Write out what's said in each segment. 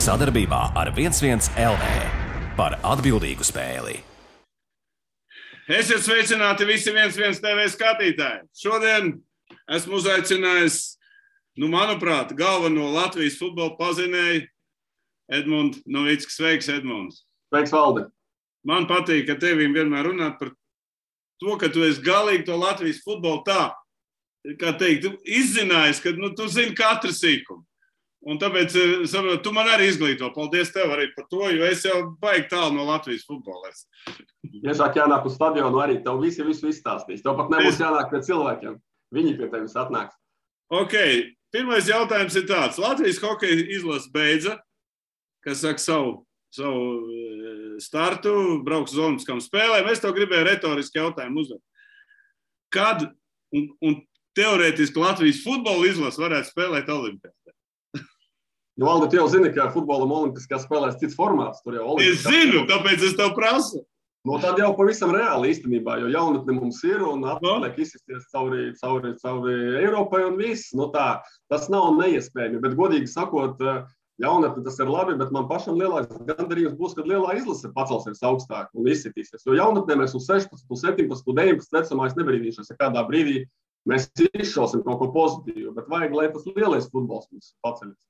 Sadarbībā ar 11 LV par atbildīgu spēli. Esiet sveicināti visi 11 TV skatītāji. Šodien esmu uzaicinājis, manuprāt, galveno Latvijas futbola pazinēju Edmundu Novicku. Sveiks, Edmunds. Sveiks, Valdi. Man patīk, ka tevim vienmēr runāt par to, ka tu esi galīgi to Latvijas futbolu tā, kā teikt, izzinājis, ka tu zini katru sīkumu. Un tāpēc, saprot, tu man arī izglīto. Paldies tev arī par to, jo es jau baigi tālu no Latvijas futbola. Tiešāk jānāk uz stadionu arī. Tev visu izstāstīs. Tev pat nebūs jānāk pie cilvēkiem. Viņi pie tevis atnāks. Ok, pirmais jautājums ir tāds. Latvijas hokeja izlase beidza, kas saka savu startu, brauks uz olimpiskām spēlēm. Es tev gribēju retoriski jautājumu uzdot. Kad un teorētiski Latvijas futbola izlase varētu spēlēt olimpiādē? Valdi, tu jau zini, ka futbolam olimpiskās spēlēs cits formāts. Tur jau es zinu, tāpēc es tev prasu. Tad jau pavisam reāli īstenībā, jo jaunatne mums ir un atliek izsisties cauri Eiropai un viss. Tas nav neiespējami, bet godīgi sakot, jaunatne tas ir labi, bet man pašam lielāks gandarījums būs, kad lielā izlase pacelsies augstāk un izsitīsies. Jo jaunatnē mēs uz 16, 17, 19 vecumā es nebrīdīšos, ja kādā brīdī mēs izšausim kaut ko pozitīvu, bet vajag, lai tas lielais futbols mums paceļas.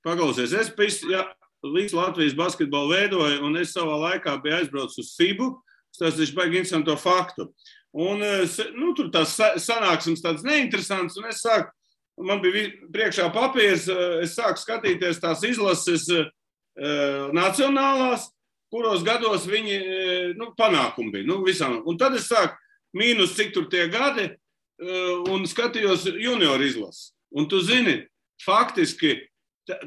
Paklausies, es visu Latvijas basketbolu veidoju, un es savā laikā biju aizbraucis uz FIBU, tas ir baigi interesantu faktu. Un tur tās sanāksmes tādas neinteresantas, un es sāku, man bija priekšā papīrs, es sāku skatīties tās izlases nacionālās, kuros gados viņi panākumi bija, visām. Un tad es sāku mīnus, cik tur tie gadi, un skatījos junior izlases. Un tu zini, faktiski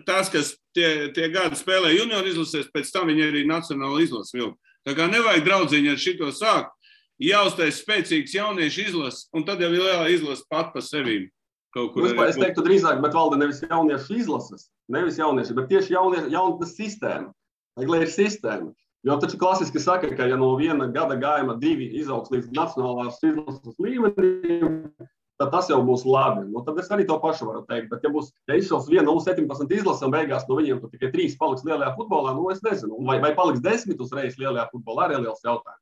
tas, kas tie gadi spēlē junior izlasēs, pēc tam viņi arī nacionāla izlases vilka. Tā kā nevajag draudziņi ar šito sākt, jāuztais spēcīgs jauniešu izlases, un tad jau ir lielā izlase pat pa sevīm. Es teiktu drīzāk, bet valda nevis jauniešu izlases, nevis jaunieši, bet tieši jaunatnes sistēma. Lai ir sistēma. Jo taču klasiski saka, ka ja no viena gada gājuma 2 izaugs līdz nacionālās izlases līmenim, tad tas jau būs labi. Tad es arī to pašu varu teikt. Bet ja izšaus viena U17 izlase un beigās no viņiem tikai 3 paliks lielajā futbolā, es nezinu. Vai paliks 10 uzreiz lielajā futbolā, arī liels jautājums.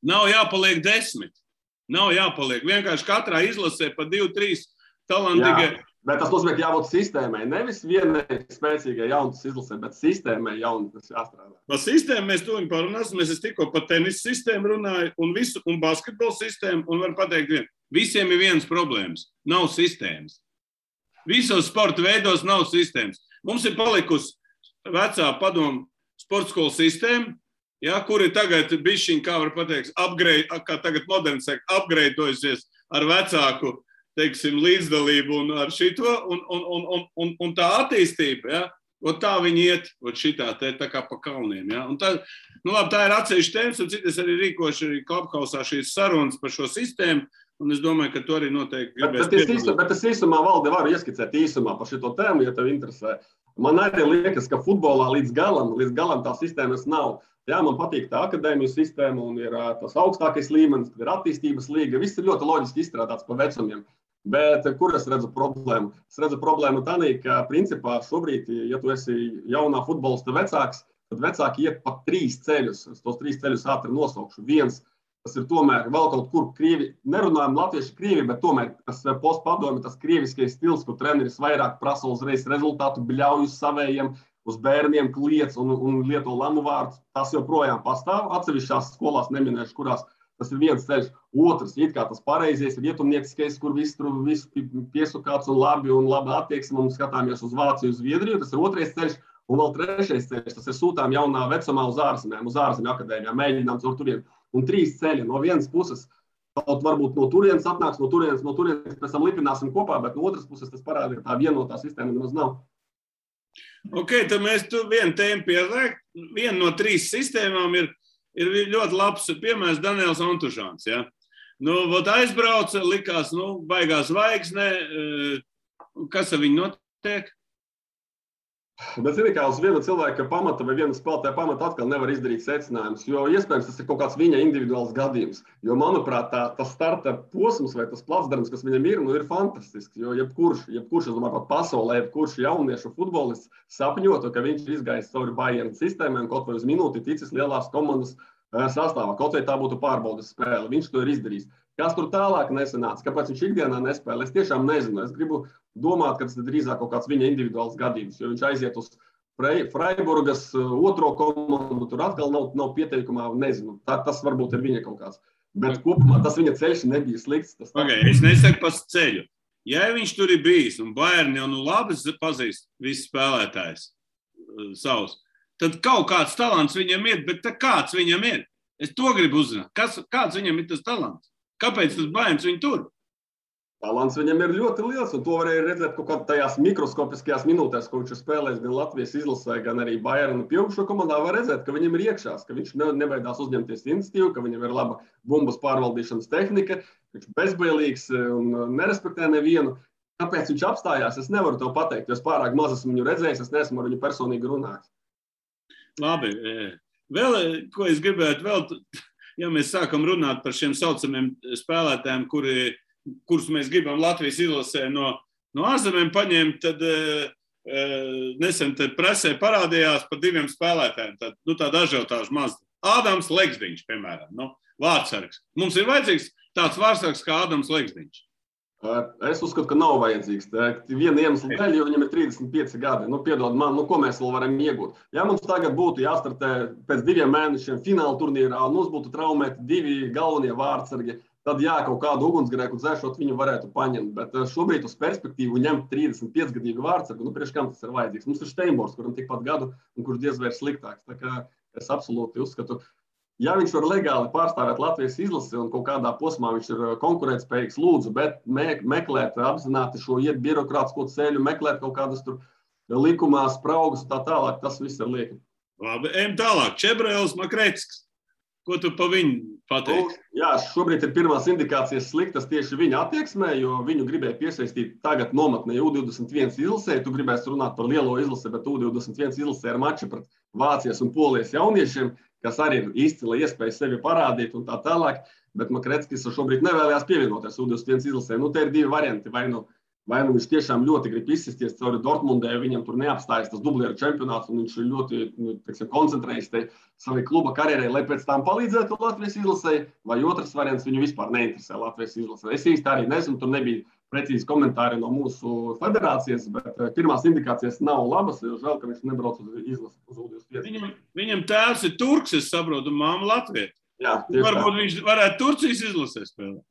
Nav jāpaliek 10. Nav jāpaliek. Vienkārši katrā izlasē pa 2-3 talantīgie. Bet tas nozīmē, ka jābūt sistēmai. Nevis vienai spēcīgai jaunas izlasē, bet sistēmai jaunas jāstrādā. Par sistēmu mēs tuviņ parunāsim. Es tikko par tenisa sistēmu runāju un basketbola sistēmu. Un varu pateikt vienu. Visiem ir vienas problēmas. Nav sistēmas. Visos sporta veidos nav sistēmas. Mums ir palikusi vecā padomu sporta skolu sistēma, kur ir tagad bišķiņ, kā var pateikt, kā tagad moderni saka, upgradeojusies ar vecāku, teiksim, līdzdalību un ar šito, un tā attīstība, tā viņi iet, šitā tā kā pa kalniem, Un tā ir atsevišķa tēmas, un citas arī rīkoši Klubhausā šīs sarunas par šo sistēmu, un es domāju, ka to arī noteikti gribēs piedalīt. Bet es īsumā, Valdi, varu ieskicēt īsumā par šito tēmu, ja tev interesē. Man arī liekas, ka futbolā līdz galam tā sistēmas nav. Man patīk tā akadēmiju sistēma un ir tas augstākais līmenis, ir attīstības līga. Viss ir ļoti loģiski izstrādāts pa vecumiem. Bet kur es redzu problēmu? Es redzu problēmu tādā, ka principā šobrīd, ja tu esi jaunā futbolista vecāks, tad vecāki iet pa 3 ceļus. Es tos 3 ceļus ātri nosaukšu. Viens, tas ir tomēr vēl kaut kur krievi, nerunājam latvieši krievi, bet tomēr tas postpadomi, tas krieviskais stils, kur treneris vairāk prasa uzreiz rezultātu, bļauj uz savējiem, uz bērniem kliedz un lieto lamu vārdu. Tas joprojām pastāv. Atsevišķās skolās neminēšu, kurās tas ir viens ceļš. Otrs, it kā tas pareizies, ir ietumnieciskais, kur visu piesukāts un labi attieksme, un skatāmies uz Vāciju, uz Zviedriju. Tas ir otrais ceļš. Un vēl trešais ceļš, tas ir sūtām jaunā vecumā uz ārzemju akadēmijām, mēģinām caur turien. Un 3 ceļi. No vienas puses, varbūt no turienes atnāks, no turienes pēc tam lipināsim kopā, bet no otras puses tas parāda, ka tā vienotā sistēma nemaz nav. Ok, tad mēs vienu tēmu pieliek. Viena no 3 sistēmām ir ļoti labs piemērs Daniels Antužāns. Aizbrauca, likās, baigās zvaigzne. Kas ar viņu notiek? Bet, zini, kā uz viena cilvēka pamata vai viena spēlētāja pamata atkal nevar izdarīt secinājumus, jo iespējams tas ir kaut kāds viņa individuāls gadījums. Jo, manuprāt, tas starta posms vai tas placdarms, kas viņam ir fantastisks. Jo jebkurš, es domāju, pat pasaulē, jebkurš jauniešu futbolists sapņotu, ka viņš izgājis cauri Bayern sistēmām, kaut vai uz minūti ticis lielās komandas sastāvā, kaut vai tā būtu pārbaudas spēle. Viņš to ir izdarījis. Kas tur tālāk nesanāca, kāpēc viņš ikdienā nespēlē, es tiešām nezinu. Es gribu domāt, ka tas ir drīzāk kaut kāds viņa individuāls gadījums, jo viņš aiziet uz Freiburgas otro komandu, tur atkal nav pieteikumā, nezinu. Tas varbūt ir viņa kaut kāds. Bet kopumā tas viņa ceļš nebija slikts. Es nesaku par ceļu. Ja viņš tur ir bijis, un Bayern jau labi pazīst visus spēlētājus savus, tad kaut kāds talants viņam ir, bet kāds viņam ir? Es to gribu uzzināt. Kāds viņam ir tas talants? Kāpēc tas Bayerns viņu tur? Talants viņam ir ļoti liels, un to varēja redzēt kaut kādā tajās mikroskopiskajās minūtēs, ko viņš ir spēlējis gan Latvijas izlasē, gan arī Bayernu pieaugušo komandā. Var redzēt, ka viņam ir iekšās, ka viņš nebaidās uzņemties iniciatīvu, ka viņam ir laba bumbas pārvaldīšanas tehnika, viņš ir bezbailīgs un nerespektē nevienu. Kāpēc viņš apstājās, es nevaru tev pateikt, jo es pārāk maz esmu viņu redzējis, es neesmu ar viņu personīgi runājis. Labi. Vēl, ko es gribētu ja mēs sākam runāt par šiem saucamiem spēlētājiem, kurus mēs gribam Latvijas izlasē no ārzemēm paņemt, tad nesen presē parādījās par diviem spēlētājiem. Tāda ažiotāža maz. Ādams Leksdiņš, piemēram, vārdsargs. Mums ir vajadzīgs tāds vārdsargs kā Ādams Leksdiņš. Es uzskatu, ka nav vajadzīgs. Viena iemesla dēļ, jo viņam ir 35 gadi. Piedod man, ko mēs vēl varam iegūt? Ja mums tagad būtu jāstartē pēc 2 mēnešiem fināla turnīrā, un mums būtu traumēti 2 galvenie vārdsargi, tad kaut kādu ugunsgrēku dzēšot viņu varētu paņemt. Bet šobrīd uz perspektīvu ņemt 35-gadīgu vārdsargu, priekš kam tas ir vajadzīgs? Mums ir Steinbors, kuram tikpat gadu, un kurš diez vai ir sliktāks. Tā kā es absolūti uzskatu, ja viņš var legāli pārstāvēt Latvijas izlasi un kaut kādā posmā viņš ir konkurētspējīgs, lūdzu, bet meklēt apzināti šo iet birokrātisko ceļu, meklēt kaut kādas tur likumā spraugas un tā tālāk, tas viss ir lieki. Labi, ejam tālāk. Čebrēls Makrecks. Ko tu pa viņu pateiksi? Jā, šobrīd ir pirmās indikācijas sliktas tieši viņa attieksmē, jo viņu gribēja piesaistīt tagad nometnē U21 izlasē. Tu gribēsi runāt par lielo izlasi, bet U21 izlasē ir mači pret Vācijas un Polijas jauniešiem, kas arī ir izcila iespēja sevi parādīt un tā tālāk. Bet Makreckis šobrīd nevēlējās pievienoties U21 izlasē. Te ir 2 varianti. Vai nu viņš tiešām ļoti grib izsisties cauri Dortmundē, viņam tur neapstājas tas dublieru čempionāts, un viņš ir ļoti koncentrējies savai kluba karjerai, lai pēc tam palīdzētu Latvijas izlasē, vai otrs variants viņu vispār neinteresē Latvijas izlasē. Es īsti arī nezinu, tur nebija precīzi komentāri no mūsu federācijas, bet pirmās indikācijas nav labas, jo žēl, ka viņš nebrauc uz izlasi uz U21. Viņam tēvs ir turks, es saprotu, māma Latvija. Jā, varbūt viņš varētu Turcijas izlasē spēlēt.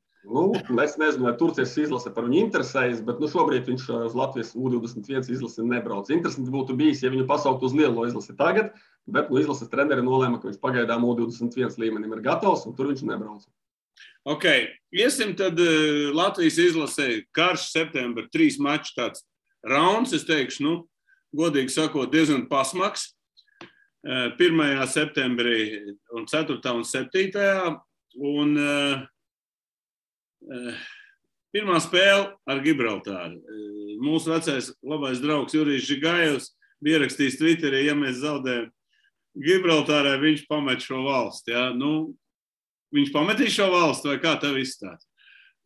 Es nezinu, vai Turcijas izlase par viņu interesējas, bet šobrīd viņš uz Latvijas U21 izlasi nebrauc. Interesanti būtu bijis, ja viņu pasaukt uz lielo izlasi tagad, bet izlases treneri nolēma, ka viņš pagaidām U21 līmenim ir gatavs, un tur viņš nebrauc. Ok, iesim tad Latvijas izlasē karš septembra 3 maču tāds rauns, es teikšu, godīgi sakot, diezgan pasmaks. 1. septembrī un 4. un 7. Un pirmā spēle ar Gibraltāru. Mūsu vecais labais draugs Jurijs Žigājevs bija ierakstījis Twitterī, ja mēs zaudējam Gibraltārai, viņš pamet šo valsti. Ja? Viņš pametīs šo valsti, vai kā tev izstāst?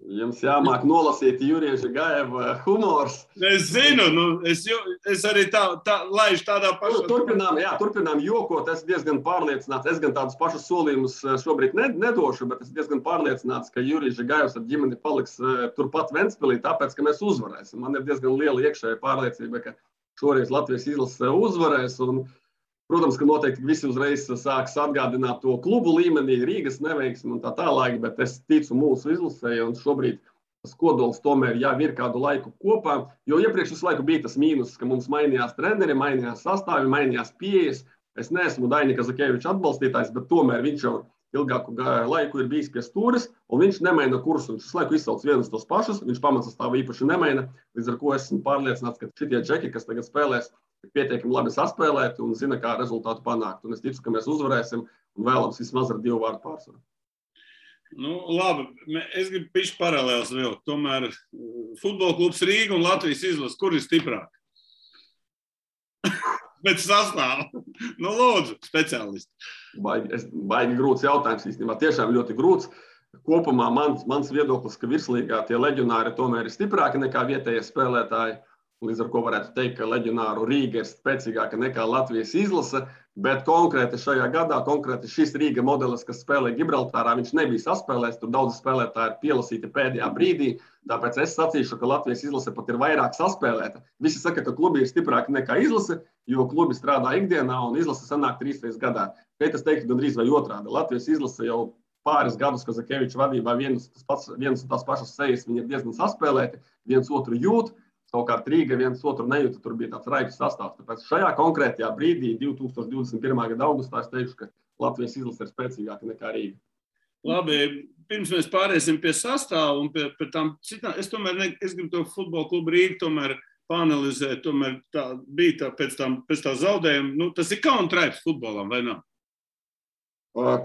Jums jāmāk nolasīt Jurija Žigājeva humors. Es zinu, es arī laižu tādā pašā. Turpinām jokot, es diezgan pārliecināts, es gan tādus pašus solījumus šobrīd nedošu, bet es diezgan pārliecināts, ka Jurijs Žigājevs ar ģimeni paliks turpat Ventspilī, tāpēc, ka mēs uzvarēsim. Man ir diezgan liela iekšēja pārliecība, ka šoreiz Latvijas izlase uzvarēs, un protams, ka noteikti visi uzreiz sāks atgādināt to klubu līmenī, Rīgas neveiksmi un tā tālāk, bet es ticu mūsu izlasē, un šobrīd tas kodols tomēr jau ir kādu laiku kopā, jo iepriekš visu laiku bija tas mīnus, ka mums mainījās treneri, mainījās sastāvi, mainījās pieejas. Es neesmu Daini Kazakēviča atbalstītājs, bet tomēr viņš jau ilgāku laiku ir bijis pie stūres, un viņš nemaina kursu. Viņš visu laiku izsauc vienus tos pašus, viņš pamatsastāvu īpaši nemaina, līdz ar ko esmu pārliecināts, ka šitie džeki, kas tagad spēlēs, pietiekami labi saspēlēt un zina, kā rezultātu panākt. Un es ticu, ka mēs uzvarēsim un vēlams vismaz ar 2 vārdu pārsvaru. Labi, es gribu pišķi paralēls vēl. Tomēr futbola klubs Rīga un Latvijas izlase, kur ir stiprāk? Bet sastāv. Nu, lūdzu, speciālisti. Baigi grūts jautājums īstenībā. Tiešām ļoti grūts. Kopumā mans viedoklis, ka virslīgā tie leģionāri tomēr ir stiprāki nekā vietējie spēlētāji. Līdz ar ko varētu teikt, ka leģionāru Rīga ir spēcīgāka nekā Latvijas izlase, bet konkrēti šajā gadā, konkrēti šis Rīga modelis, kas spēlē Gibraltārā, viņš nebija saspēlēts, tur daudzi spēlētāji ir pielasīti pēdējā brīdī, tāpēc es sacīšu, ka Latvijas izlase pat ir vairāk saspēlēta. Visi saka, ka klubi ir stiprāki nekā izlase, jo klubi strādā ikdienā un izlase sanāk 3 reizes gadā. Šeit es teiktu gandrīz vai otrādi. Latvijas izlase jau pāris gadus Kazakeviča vadībā vienas un tās pašas sejas, viņi ir diezgan saspēlēti, viens otru jūt. Savukārt Rīga viens otru nejūta, tur bija tāds raips sastāvs. Tāpēc šajā konkrētajā brīdī, 2021. gada augustā, es teikšu, ka Latvijas izlase ir spēcīgāka nekā Rīga. Labi, pirms mēs pāriesim pie sastāvu un pie tām citām, es gribu to futbola klubu Rīgu tomēr paanalizēt, tomēr tā bija pēc tā zaudējuma. Nu, tas ir kauna traips futbolam, vai nav?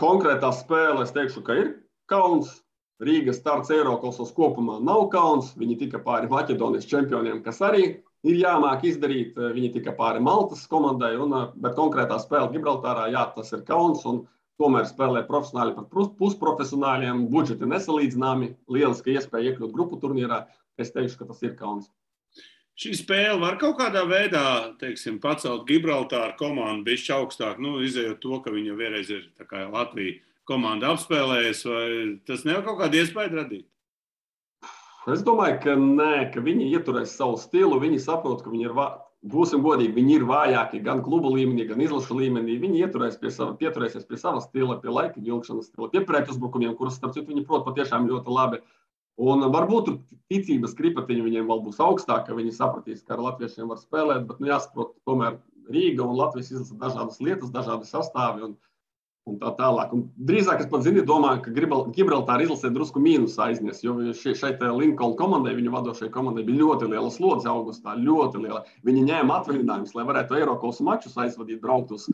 Konkrētā spēle, es teikšu, ka ir kauns. Rīgas starts Eirokasos kopumā nav kauns. Viņi tika pāri Maķedonijas čempioniem, kas arī ir jāmāk izdarīt. Viņi tika pāri Maltas komandai, bet konkrētā spēle Gibraltārā, jā, tas ir kauns. Un tomēr spēlē profesionāļi par pusprofesionāļiem, budžeti nesalīdzināmi, lieliska iespēja iekļūt grupu turnīrā. Es teikšu, ka tas ir kauns. Šī spēle var kaut kādā veidā, teiksim, pacelt Gibraltāru komandu bišķi augstāk, izējot to, ka viņa vienreiz ir tā kā Latvija komanda apspēlējas, vai tas nevar kaut kādu iespēju radīt? Es domāju, ka nē, ka viņi ieturēs savu stilu, viņi saprot, ka viņi ir, būsim godīgi, viņi ir vājāki gan klubu līmenī, gan izlašu līmenī. Viņi pieturēsies pie sava stila, pie laika vilkšanas stila, pie pretuzbrukumiem, kurus, starp citu, viņi prot patiešām ļoti labi. Un varbūt ticības kripatiņi viņiem vēl būs augstāk, ka viņi sapratīs, ka ar latviešiem var spēlēt, bet jāsaprot, tomēr Rīga un Latvijas izlasa dažādas lietas, dažādi sastāvi un tā tālāk. Un drīzāk es pat domāju, ka Gibraltāra izlasē drusku mīnus aiznes, jo šeit Lincoln komandai, viņu vadošajai komandai bija ļoti liela slodze augustā, ļoti liela. Viņi ņēma atvaļinājumus, lai varētu Eirokaus mačus aizvadīt, braukt uz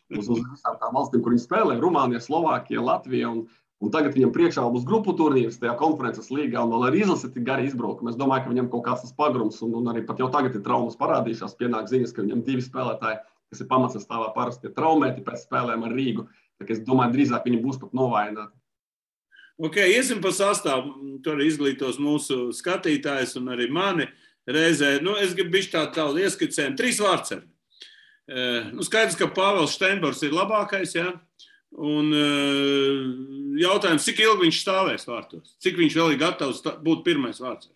visām tām valstīm, kur viņi spēlē, Rumānija, Slovākija, Latvija, un tagad viņam priekšā būs grupu turnīrs tajā konferences līgā, un vēl ar izlasi tik gari izbraukumi. Es domāju, ka viņam kaut kāds tas pagrums, un arī pat jau tagad ir traumas parādījušās, pienāk ziņas, ka viņam 2 spēlētāji, kas ir pamatsastāvā parasti traumēti pēc spēlēm ar Rīgu. Tā, es domāju, drīzāk viņi būs pat novājināti. Ok, iesim pa sastāvu. Tur izglītos mūsu skatītājs un arī mani reizē. Es gribu bišķi tādu ieskicējumu. 3 vārdsargi. Skaidrs, ka Pāvils Steinbors ir labākais, ja? Un jautājums, cik ilgi viņš stāvēs vārtos? Cik viņš vēl ir gatavs būt pirmais vārdsargs?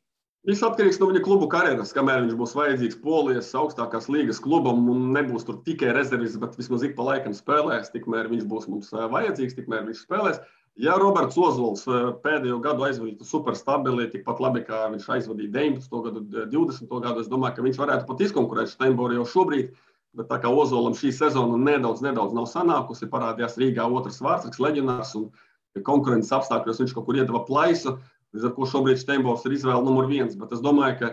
Viss atkarīgs no viņa klubu karjeras, kamēr viņš būs vajadzīgs Polijas augstākās līgas klubam un nebūs tur tikai rezervis, bet vismaz ik pa laikam spēlēs, tikmēr viņš būs mums vajadzīgs, tikmēr viņš spēlēs. Ja Roberts Ozols pēdējo gadu aizvadītu super stabili, tikpat labi, kā viņš aizvadīja 19. gadu, 20. gadu, es domāju, ka viņš varētu pat izkonkurēt Steinboru jau šobrīd, bet tā kā Ozolam šī sezona nedaudz nav sanākusi, parādījās Rīgā otrs vārdsargs, leģionārs un konkurences apstākļos viņš kaut kur iedeva plaisu. Līdz ar ko šobrīd Steinbors ir izvēle numur 1, bet es domāju, ka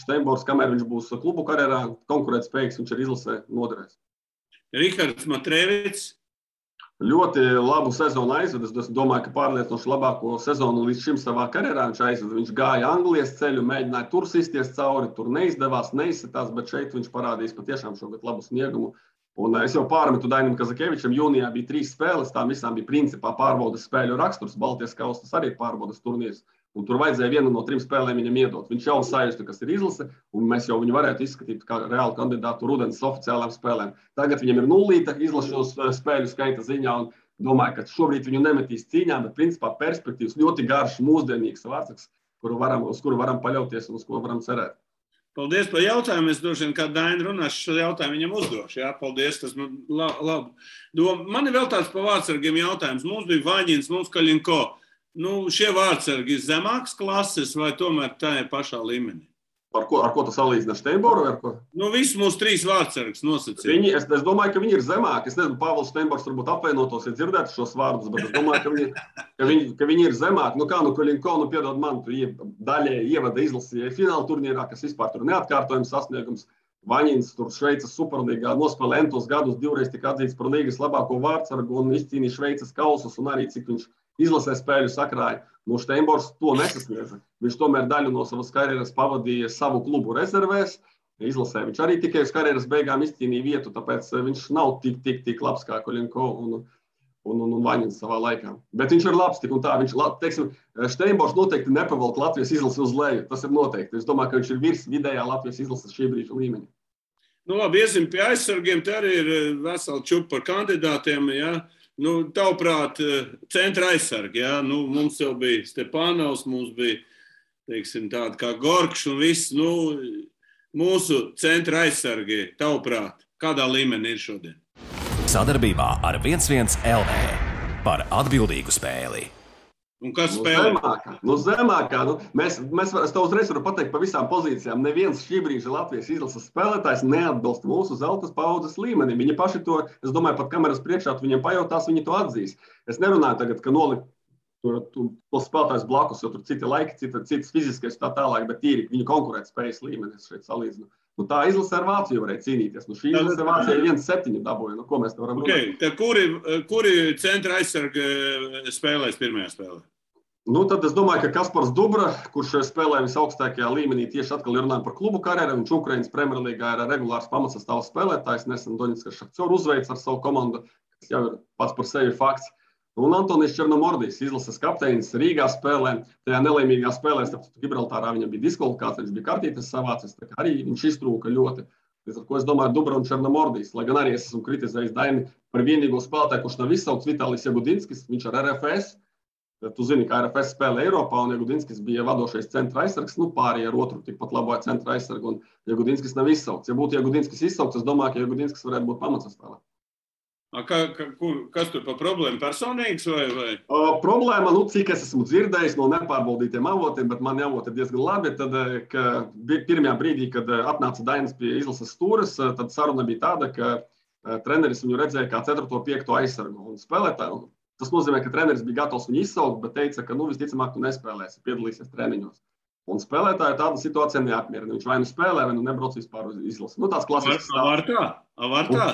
Steinbors, kamēr viņš būs klubu karjerā, konkurētspējīgs, viņš ir izlasē noderēs. Rihards Matrēvits. Ļoti labu sezonu aizved. Es domāju, ka pārliecinoši labāko sezonu līdz šim savā karjerā viņš aizved. Viņš gāja Anglijas ceļu, mēģināja tur sisties cauri, tur neizdevās, neizsitās, bet šeit viņš parādīs patiešām šogad labu sniegumu. Un es jau pārmetu Dainam Kazakevičam, jūnijā bija 3 spēles, tām visām bija principā pārbaudas spēļu raksturs, Baltijas kausas arī ir pārbaudas turnīrs. Un tur vajadzēja vienu no 3 spēlēm viņam iedot. Viņš jau sajusta, kas ir izlase, un mēs jau viņu varētu izskatīt kā reālu kandidātu rudens oficiālām spēlēm. Tagad viņam ir 0 izlašos spēļu skaita ziņā, un domāju, ka šobrīd viņu nemetīs cīņā, bet principā perspektīvas ļoti garš, mūsdienīgs vārdsargs, uz kuru varam paļauties un uz ko varam cerēt. Paldies par jautājumu. Es droši vien, kā Daina runās, šo jautājumu viņam uzdošu. Jā, paldies, tas man labi. Man ir vēl tāds par vārdsargiem jautājums. Mums bija Vaņins, mums Kaļinko. Šie vārdsargi ir zemākas klases vai tomēr tā ir pašā līmenī? Ar ko tu salīdzini ar Steinboru? Ar ko? Visi mūsu 3 vārdsargus nosacīja. Es domāju, ka viņi ir zemāki. Es nezinu, Pāvils Steinbors varbūt apvainotos, ja dzirdētu šos vārdus, bet es domāju, ka viņi ir zemāki. Kaļinko, piedod man, tu daļēji ievada izlasīja fināla turnīrā, kas vispār tur neatkārtojams sasniegums. Vaņins tur Šveices superlīgā nospēlē entos gadus, 2 tika atzīts par līgas labāko vārdsargu un izcīnīja Šveices kausus un arī cik viņš izlasē spēļu sakrāja. Steinbors to nesasniedza. Viņš tomēr daļu no savas karjeras pavadīja savu klubu rezervēs, izlasē. Viņš arī tikai uz karjeras beigām izcīnīja vietu, tāpēc viņš nav tik labs kā Koļenko un Vaņins savā laikā. Bet viņš ir labs tik un tā. Viņš, teiksim, Steinbors noteikti nepavalk Latvijas izlasi uz leju. Tas ir noteikti. Es domāju, ka viņš ir virs vidējā Latvijas izlases šī brīža līmeņa. Nu labi, iesim pie aizsargiem. Te arī ir vesela čupa par kandidātiem. Ja? Nu, tavuprāt, centra aizsargi. Ja? Nu, mums jau bija Stepanovs, mums bija, teiksim, tādi kā Gorkš un viss. Nu, mūsu centra aizsargi, tavuprāt, kādā līmenī ir šodien? Sadarbībā ar 1-1 LV par atbildīgu spēli. Un kas spēlē? Zemākā. Es tev uzreiz varu pateikt pa visām pozīcijām. Neviens šī brīža Latvijas izlases spēlētājs neatbilst mūsu zeltas paudzes līmenim. Viņi paši to, es domāju, pat kameras priekšā viņiem pajautās, viņi to atzīs. Es nerunāju tagad, ka nolikt to spēlētājs blakus, jo tur citi laiki, citas fiziskais tā tālāk, bet tīri viņu konkurētspējas līmenis šeit salīdzinu. Nu, tā izlase ar Vāciju varēja cīnīties. Nu, šī izlase ar Vācijai 1-7 dabūja. Nu, ko mēs te varam runāt? Tad kuri centra aizsargi spēlēs pirmajā spēlē? Nu, tad es domāju, ka Kaspars Dubra, kurš spēlē visaugstākajā līmenī, tieši atkal runājam par klubu karjeru. Viņš Ukrainas Premjerlīgā ir regulārs pamatsastāvs spēlētājs. Nesen Doņetskas Šahcjoru uzveic ar savu komandu, kas jau ir pats par sevi fakts. Un Antonijs Černomordijs, izlases kapteinis, Rīgā spēlē. Tajā nelēmīgā spēlē, starp Gibraltārā viņam bija diskvalifikācija, viņš bija kartītes savācis, tā kā arī viņš iztrūka ļoti. Līdz ar ko es domāju Dubra un Černomordijs, lai gan arī es esmu kritizējis Daini par vienīgo spēlētāju, kurš nav izsaukts Vitālijs Jagudinskis, viņš ar RFS. Tu zini, ka RFS spēlē Eiropā un Jagudinskis bija vadošais centra aizsargs, nu pārējie ar otru tikpat labo centra aizsargu un Jagudinskis nav izsaukts. Ja būtu Jagudinskis izsaukts, es domāju, ka Jagudinskis varētu būt pamatsastāvā. Kas tur par problēmu personīgs vai? Problēma, cik es esmu dzirdējis no nepārbaudītiem avotiem, bet mani avoti ir diezgan labi, tad, ka pirmajā brīdī, kad atnāca Dainis pie izlases stūres, tad saruna bija tāda, ka treneris viņu redzēja kā 4. un 5. aizsargu un spēlētāju. Tas nozīmē, ka treneris bija gatavs viņu izsaukt, bet teica, ka visticamāk tu nespēlēsi, piedalīsies treniņos. Un spēlētāju tāda situācija neapmierina. Viņš vai nu spēlē, vai nu nebrauc vispār uz izlasi. Tāds klasisks stāsts. Var tā?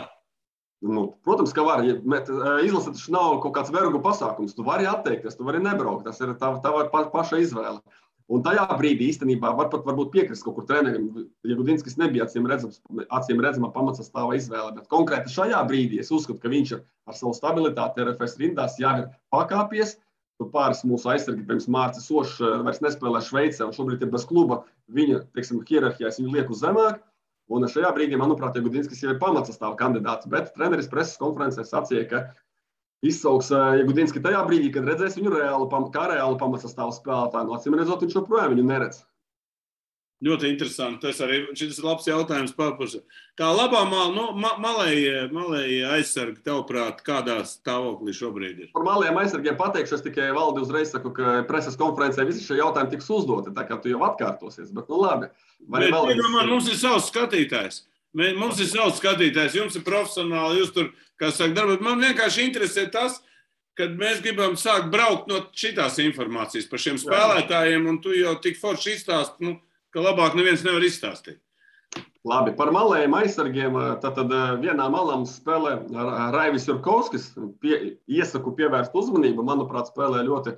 Protams, ka var. Izlase taču nav kaut kāds vergu pasākums. Tu vari atteikties, tu vari nebraukt. Tas ir tava paša izvēle. Un tajā brīdī īstenībā varbūt piekrist kaut kur trenerim. Jagudinskis nebija acīm redzama pamatsastāva izvēle, bet konkrēti šajā brīdī es uzskatu, ka viņš ar savu stabilitāti RFS rindās jau ir pakāpies. Tur pāris mūsu aizsargi, pirms Mārcis Ošs vairs nespēlē Šveicē un šobrīd ir bez kluba. Viņa, teiksim, hierarhijās viņu liek uz zemāk. Un šajā brīdī, manuprāt, Jagudinskis jau ir pamatsastāva kandidāts, bet treneris preses konferencē sacīja, ka izsauks Jagudinski tajā brīdī, kad redzēs viņu kā reālu pamatsastāvu spēlētāju. No acīm redzot, viņš joprojām viņu neredz. Ļoti interesanti. Šis ir labs jautājums. Kā labā malēji aizsargi, tavuprāt, kādā stāvoklī šobrīd ir? Par malējiem aizsargiem pateikšu, es tikai Valdi uzreiz saku, ka preses konferencē visi šie jautājumi tiks uzdoti, tā kā tu jau atkārtosies, bet labi. Mums ir savs skatītājs. Jums ir profesionāli, jūs tur, kā saka, darbat. Man vienkārši interesē tas, kad mēs gribam sākt braukt no šitās informācijas par šiem spēlētājiem, un tu jau tik forši izstāsti, ka labāk neviens nevar izstāstīt. Labi, par malējiem aizsargiem. Tad vienā malā mums spēlē Raivis Jurkovskis. Iesaku pievērst uzmanību. Manuprāt, spēlē ļoti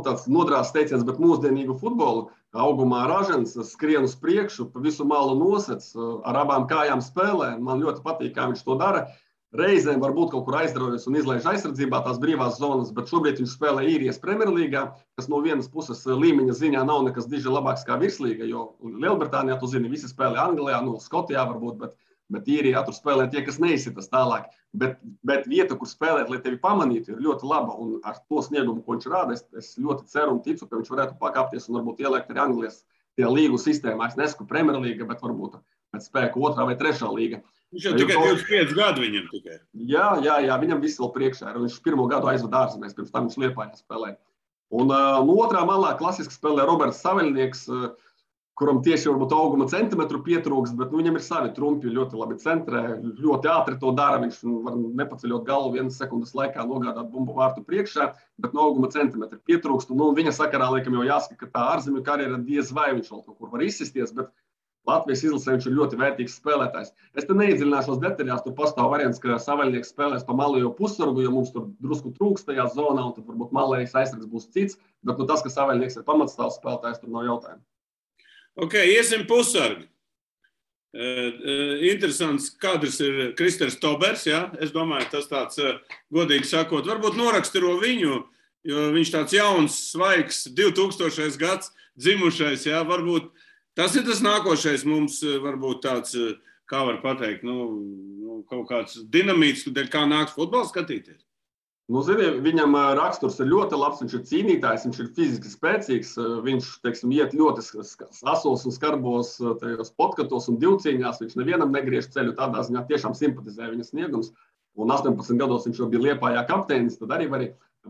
tāds nodrās teiciens, bet mūsdienīgu futbolu. Augumā ražens, skrien uz priekšu, pa visu malu nosec, ar abām kājām spēlē. Man ļoti patīk, kā viņš to dara. Reizēm varbūt kaut kur aizdarbojas un izlaiž aizsardzībā tās brīvās zonas, bet šobrīd viņš spēlē Īrijas Premjerlīgā, kas no vienas puses līmeņa ziņā nav nekas diži labāks kā virslīga, jo Lielbritānijā, tu zini, visi spēlē Anglijā, Skotijā varbūt, bet Īrijā tur spēlē tie, kas neizsitas tālāk. Bet vieta, kur spēlēt, lai tevi pamanītu, ir ļoti laba, un ar to sniegumu, ko viņš rāda, es ļoti ceru un ticu, ka viņš varētu pakāpties un varbūt ieliekt arī Anglijas tajā līgu sistēmā. Es nesaku Premjerlīga, bet varbūt pēc spēku 2. vai 3. līga. Viņš jau tikai 25 gadu viņam tikai. Jā, viņam viss vēl priekšā ir. Viņš 1. gadu aizvada ārzemēs, pirms tam viņš Liepājā spēlē. Un no otrā malā klasiski spēlē Roberts Saveļnieks, kuram tieši varbūt auguma centimetru pietrūkst, bet viņam ir savi trumpi, ļoti labi centrē, ļoti ātri to dara. Viņš var nepaceļot galvu 1 sekundes laikā nogādāt bumbu vārtu priekšā, bet no auguma centimetru pietrūkst. Un viņa sakarā laikam jau jāsaka, ka tā ārzemju karjera diez vai viņš vēl kaut kur var izsisties, bet Latvijas izlasē viņš ir ļoti vērtīgs spēlētājs. Es te neiedziļināšos detaļās, tur pastāv variants, ka Saveļnieks spēlēs pa malējo pussargu, jo mums tur drusku trūkst tajā zonā, un tad varbūt malējais aizsargs būs cits, bet tas, ka Saveļnieks ir pamatstāvs spēlētājs, tur nav jautājumu. Ok, iesim pussargi. Interesants kadrs ir Kristers Tobers, ja? Es domāju, tas tāds, godīgi sakot, varbūt noraksturo viņu, jo viņš tāds jauns, svaigs, 2000. Gads dzimušais, ja? Varbūt tas ir tas nākošais mums, varbūt tāds, kā var pateikt, kaut kāds dinamīts, kā nāks futbolu skatīties. Zini, viņam raksturs ir ļoti labs, viņš ir cīnītājs, viņš ir fiziski spēcīgs, viņš, teiksim, iet ļoti asos un skarbos tajos podkatos un divcīņās, viņš nevienam negriež ceļu, tādā ziņā tiešām simpatizē viņa sniegums, un 18 gados viņš jau bija Liepājā kapteinis, tad arī var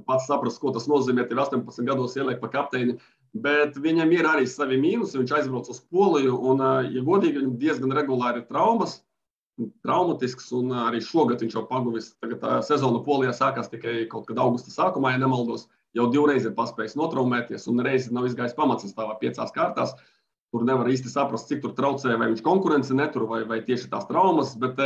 pats saprast, ko tas nozīmē, tev 18 gados ieliek pa kapteini, bet viņam ir arī savi mīnusi, viņš aizbrauc uz Poliju, un, ja godīgi, viņam diezgan regulāri ir traumatisks, un arī šogad viņš jau paguvis. Tagad sezona Polijā sākās tikai kaut kad augusta sākumā, ja nemaldos, jau 2 reizes ir paspējis notraumēties, un reizi nav izgājis pamatsastāvā 5 kārtās. Tur nevar īsti saprast, cik tur traucē, vai viņš konkurence netur, vai tieši tās traumas, bet,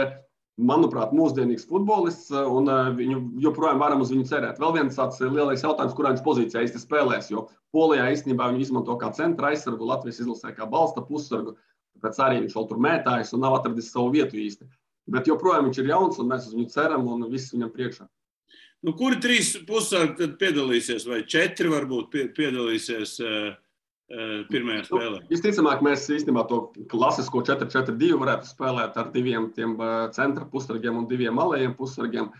manuprāt, mūsdienīgs futbolists, un viņu joprojām varam uz viņu cerēt. Vēl viens tāds lielais jautājums, kurā viņš pozīcijā īsti spēlēs, jo Polijā īstenībā viņu izmanto kā centra aizsargu, Latvijas izlasē kā balsta pussargu. Tāpēc arī viņš vēl tur mētājas un nav atradis savu vietu īsti. Bet joprojām viņš ir jauns un mēs uz viņu ceram un viss viņam priekšā. Kuri 3 pussargi tad piedalīsies vai 4 varbūt piedalīsies pirmajā spēlē? Visticamāk, mēs īstenībā to klasisko 4-4-2 varētu spēlēt ar 2 tiem centra pussargiem un 2 malējiem pussargiem.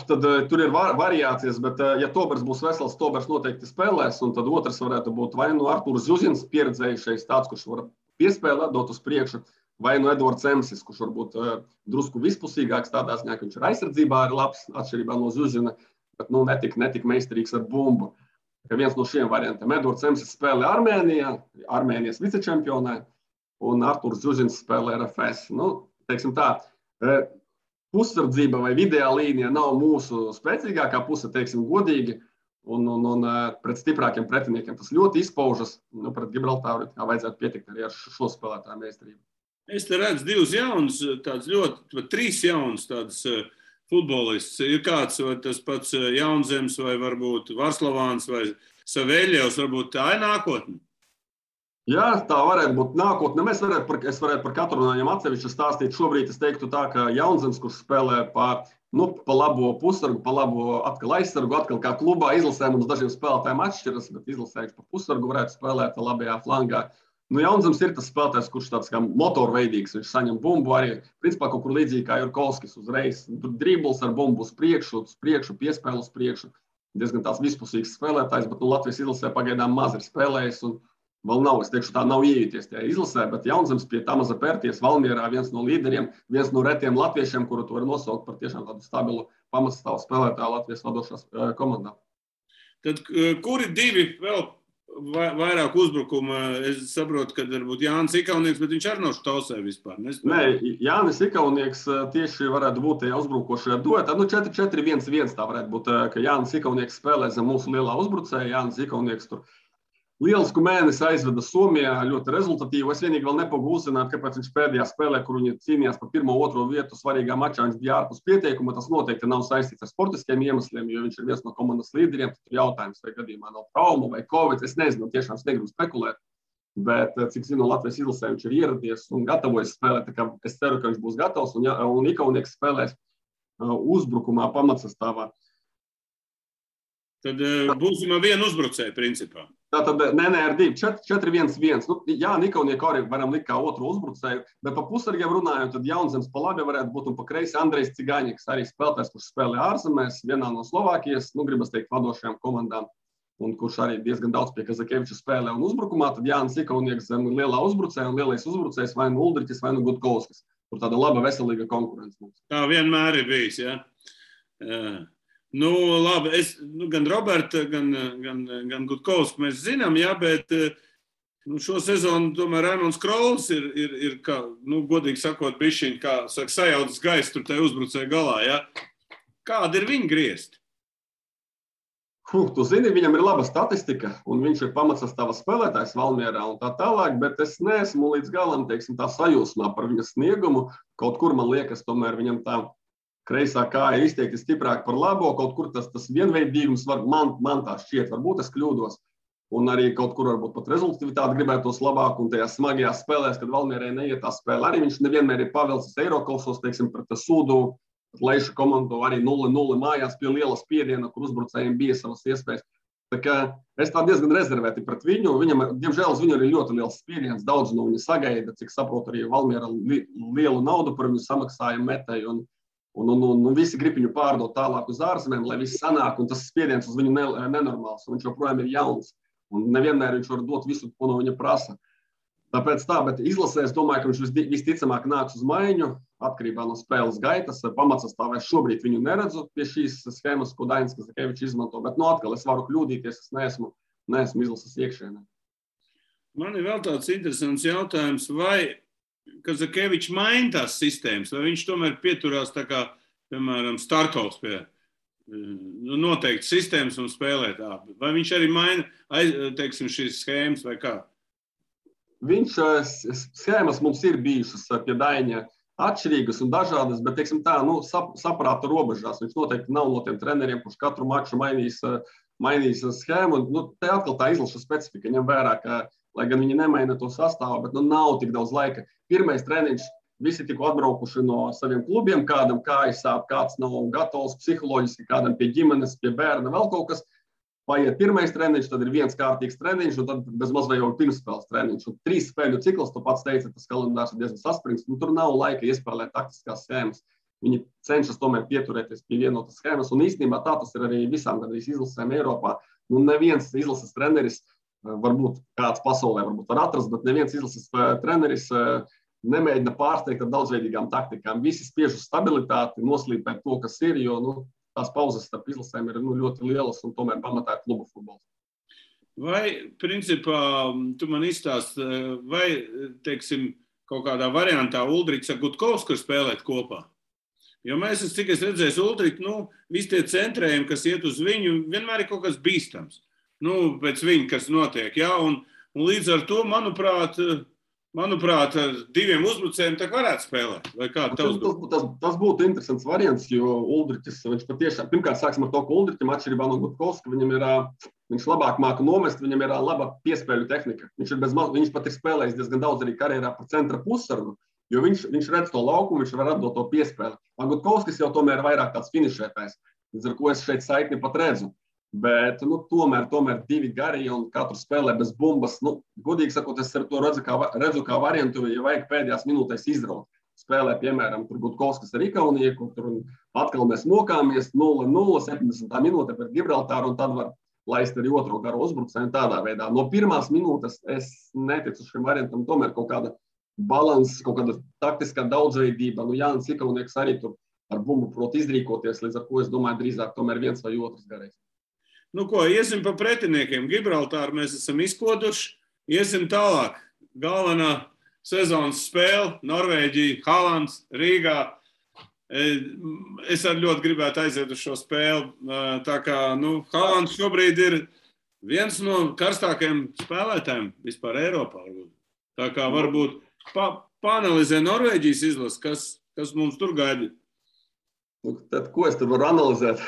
Tad tur ir variācijas, bet ja Tobers būs vesels, Tobers noteikti spēlēs, un tad otrs varētu būt vai Artūrs Zuzins, pieredzējušais tāds, kurš var piespēlēt, dot uz priekšu, vai Edvards Emsis, kurš varbūt drusku vispusīgāks tādā ziņā, ka viņš ir aizsardzībā arī labs, atšķirībā no Zuzina, bet netik meistarīgs ar bumbu. Ka viens no šiem variantiem. Edvards Emsis spēlē Armēnijā, Armēnijas vicečempionē, un Artūrs Zuzins spēlē RFS. Teiksim tā, pussardzība vai vidējā līnija nav mūsu spēcīgākā puse, teiksim godīgi, un pret stiprākiem pretiniekiem tas ļoti izpaužas. Pret Gibraltāru vajadzētu pietikt arī ar šo spēlētāju meistarību. Es te redzu 2 jaunus, tāds ļoti, 3 jaunus tāds futbolists. Ir kāds, vai tas pats Jaunzems, vai varbūt Varslavāns, vai Savēļevs, varbūt tā ir nākotne? Jā, tā varētu būt nākotne. Es varētu par katru no viņiem atsevišķi stāstīt. Šobrīd es teiktu tā, ka Jaunzems, kurš spēlē pa labo pussargu, pa labo atkal aizsargu, atkal kā klubā izlasē mums dažiem spēlētājiem atšķiras, bet izlasē pa pussargu varētu spēlēt labajā flangā. Jaunzems ir tas spēlētājs, kurš tāds kā motorveidīgs, viņš saņem bumbu arī, principā kaut kur līdzīgi kā Jurkovskis uzreiz. Tur dribbles ar bumbu uz priekšu, piespēlu uz priekšu. Diezgan tās vispusīgs spēlētājs, bet Latvijas izlasē pagaidām maz ir spēlējis un vēl nav, es teikšu, tā nav iejuties tajā izlasē, bet Jaunzems pie Tamaza Pērties Valmierā viens no līderiem, viens no retiem latviešiem, kuru tu vari nosaukt par tiešām tādu stabilu pamatsastāvu spēlētāju Latvijas vadošās komandā. Tad kuri 2 vēl vairāk uzbrukuma? Es saprotu, ka varbūt Jānis Ikaunieks, bet viņš arī nav štausē vispār. Nē, Jānis Ikaunieks tieši varētu būt tajā uzbrukošajā duetā. 4-4-1-1 tā varētu būt, ka Jānis Ikaunieks spēlē zem mūsu lielā uzbrucēja. Jānis Ikaunieks tur lielisku mēnesi aizveda Somijā, ļoti rezultatīvu. Es vienīgi vēl nepagūstu uzzināt, kāpēc viņš pēdējā spēlē, kur viņi cīnījās par 1-2 vietu svarīgā mačā, viņš bija ārpus pieteikuma. Tas noteikti nav saistīts ar sportiskiem iemesliem, jo viņš ir viens no komandas līderiem. Tur jautājums, vai gadījumā nav trauma vai covid. Es nezinu, tiešām es negribu spekulēt. Bet, cik zinu, Latvijas izlasē viņš ir ieradies un gatavojas spēlēt. Tā kā es ceru, ka viņš būs gatavs un Ikaunieks spēlēs uzbrukumā pamatsastāvā. Tad būsim ar vienu uzbrucēju principā. Tātad, ar 2, 4-1-1. Jā, Ikaunieka arī varam likt kā otru uzbrucēju, bet pa pussargiem runājot, tad Jaunzems pa labi varētu būt un pa kreisi Andrejs Cigaņiks, arī spēlētājs, kurš spēlē ārzemēs, vienā no Slovākijas, gribas teikt, vadošajām komandām, un kurš arī diezgan daudz pie Kazakeviča spēlē un uzbrukumā, tad Jānis Ikaunieks zem lielā uzbrucēja un lielais uzbrucējs vai nu Uldriķis vai nu Gutkovskis. Tur tāda laba, veselīga konkurence mums. Tā vienmēr ir bijis, jā. Labi, gan Roberta, gan Gutkovsku mēs zinām, jā, bet šo sezonu tomēr Raimonds Krols ir kā, godīgi sakot, bišķiņ, kā saka, sajaudzis gaisu tur tai uzbrucēja galā, jā. Kāda ir viņa griezti? Tu zini, viņam ir laba statistika, un viņš ir pamatsastāva spēlētājs Valmierā un tā tālāk, bet es neesmu līdz galam, teiksim, tā sajūsmā par viņa sniegumu. Kaut kur man liekas, tomēr viņam tā kreisā kāja izteikti stiprāk par labo, kaut kur tas vienveidīgums man tā šķiet, varbūt es kļūdos. un arī kaut kur varbūt pat rezultatīvitāti gribētos labāk, un tajās smagajās spēlēs, kad Valmierai neiet tā spēle, arī viņš nevienmēr ir pavilcis Eirokausos, teiksim, pret Sūdu, Leišu komandu arī 0-0 mājās pie liela spiediena, kur uzbrucējiem bija savas iespējas. Tā kā es tā diezgan rezervēti pret viņu. Viņam, diemžēl, uz viņu ir ļoti liels spiediens. Daudz no viņa sagaida, cik saprotu, arī Valmiera lielu naudu par viņu samaksāja metēji. Un visi grib viņu pārdot tālāk uz ārzemēm, lai viss sanāk. Un tas spiediens uz viņu nenormāls. Viņš joprojām ir jauns. Un nevienmēr viņš var dot visu, ko no viņa prasa. Tāpēc tā, bet izlasē es domāju, ka viņš visticamāk nāks uz maiņu, atkarībā no spēles gaitas. Pamatsastāvēs šobrīd viņu neredzu pie šīs schēmas, ko Dainis Kazakevičs izmanto, bet atkal es varu kļūdīties, es neesmu izlases iekšēnē. Man ir vēl tāds interesants jautājums, vai Kazakevičs maina tās sistēmas, vai viņš tomēr pieturās tā kā, piemēram, Starkovs pie noteikti sistēmas un spēlē tā, vai viņš arī maina, teiksim, šīs schēmas vai kā? Schēmas mums ir bijušas pie Daņa atšķirīgas un dažādas, bet, teiksim tā, saprāta robežās. Viņš noteikti nav no tiem treneriem, kurš katru maču mainīs schēmu. Te atkal tā izlaša specifika, ņem vērā, ka, lai gan viņi nemaina to sastāvu, bet nav tik daudz laika. Pirmais treniņš, visi tikko atbraukuši no saviem klubiem, kādam kājas sāp, kāds nav gatavs psiholoģiski, kādam pie ģimenes, pie bērna, vēl kaut kas. Paiet pirmais treniņš, tad ir viens kārtīgs treniņš, un tad bezmaz vai jau pirmspēles treniņš. Un 3 spēļu cikls, tu pats teici, tas kalendārs ir diezgan saspringts. Tur nav laika iespēlēt taktiskās schēmas. Viņi cenšas tomēr pieturēties pie vienotas schēmas, un īstenībā tā tas ir arī visām gandrīz izlasēm Eiropā. Neviens izlases treneris, varbūt kāds pasaulē varbūt var atrast, bet neviens izlases treneris nemēģina pārsteigt ar daudzveidīgām taktikām. Visi spiež uz stabilitāti, noslīpēt to, kas ir, jo tās pauzes starp izlasēm ir ļoti lielas un tomēr pamatā ir klubu futbols. Vai, principā, tu man izstāsti, vai, teiksim, kaut kādā variantā Uldriks ar Gutkovsku spēlēt kopā? Jo mēs, cik es redzēju, Uldriku, visi tie centrējumi, kas iet uz viņu, vienmēr ir kaut kas bīstams. Pēc viņa, kas notiek, jā, un līdz ar to, manuprāt, ar 2 uzbrucējiem tā varētu spēlēt. Vai kā tas būtu interesants variants, jo Uldriķis, viņš patiešām, pirmkārt sāksim ar to, ka Uldriķim atšķirībā no Gutkovska, viņš labāk māka nomest, viņam ir laba piespēļu tehnika. Viņš pat ir spēlējis diezgan daudz arī karjerā par centra pussargu, jo viņš redz to laukumu, viņš var atdot to piespēli. Gutkovskis jau tomēr vairāk tāds finišētājs, līdz ar ko es šeit saikni pat redzu. Bet tomēr 2 gari un katru spēlē bez bumbas. Godīgi sakot, es to redzu kā variantu, ja vajag pēdējās minūtēs izraut. Spēlē, piemēram, tur Gutkovskis ar Ikaunieku, tur atkal mēs mokāmies 0-0, 70. minūte pret Gibraltāru, un tad var laist arī otro garu uzbrucēju tādā veidā. No pirmās minūtes es neticu šim variantam, tomēr kaut kāda balanss, kaut kāda taktiskā daudzveidība. Jānis Ikaunieks arī tur ar bumbu prot izrīkoties, līdz ar ko es domāju drīzāk tomēr viens vai otrs garais. Iesim pa pretiniekiem. Gibraltāru mēs esam izkoduši. Iesim tālāk. Galvenā sezonas spēle, Norvēģija, Haalands, Rīgā. Es arī ļoti gribētu aiziet uz šo spēli. Tā kā, Haalands šobrīd ir viens no karstākajiem spēlētājiem vispār Eiropā. Tā kā varbūt paanalizē Norvēģijas izlasi, kas mums tur gaida. Tad, ko es tur varu analizēt?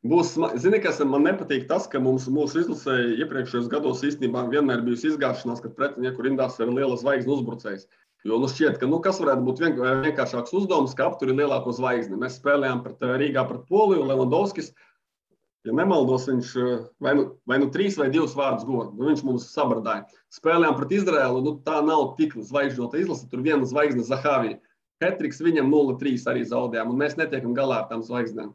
Zini, kas man nepatīk tas, ka mūsu izlasē iepriekšējos gados īstenībā vienmēr bijusi izgāšanās, kad pretinieku rindās ir liela zvaigzne uzbrucējs. Jo šķiet, ka kas varētu būt vienkāršāks uzdevums, ka aptur ir lielāko zvaigzni. Mēs spēlējām Rīgā pret Poliju, Levandovskis, ja nemaldos, viņš vai 3 vai 2 vārdus guva. Viņš mums sabradāja. Spēlējām pret Izraēlu, tā nav tik zvaigžņota izlase, tur viena zvaigzne Zahavija. Hetriks viņam 0-3 arī zaudējām, un mēs netiekam galā ar tām zvaigznēm.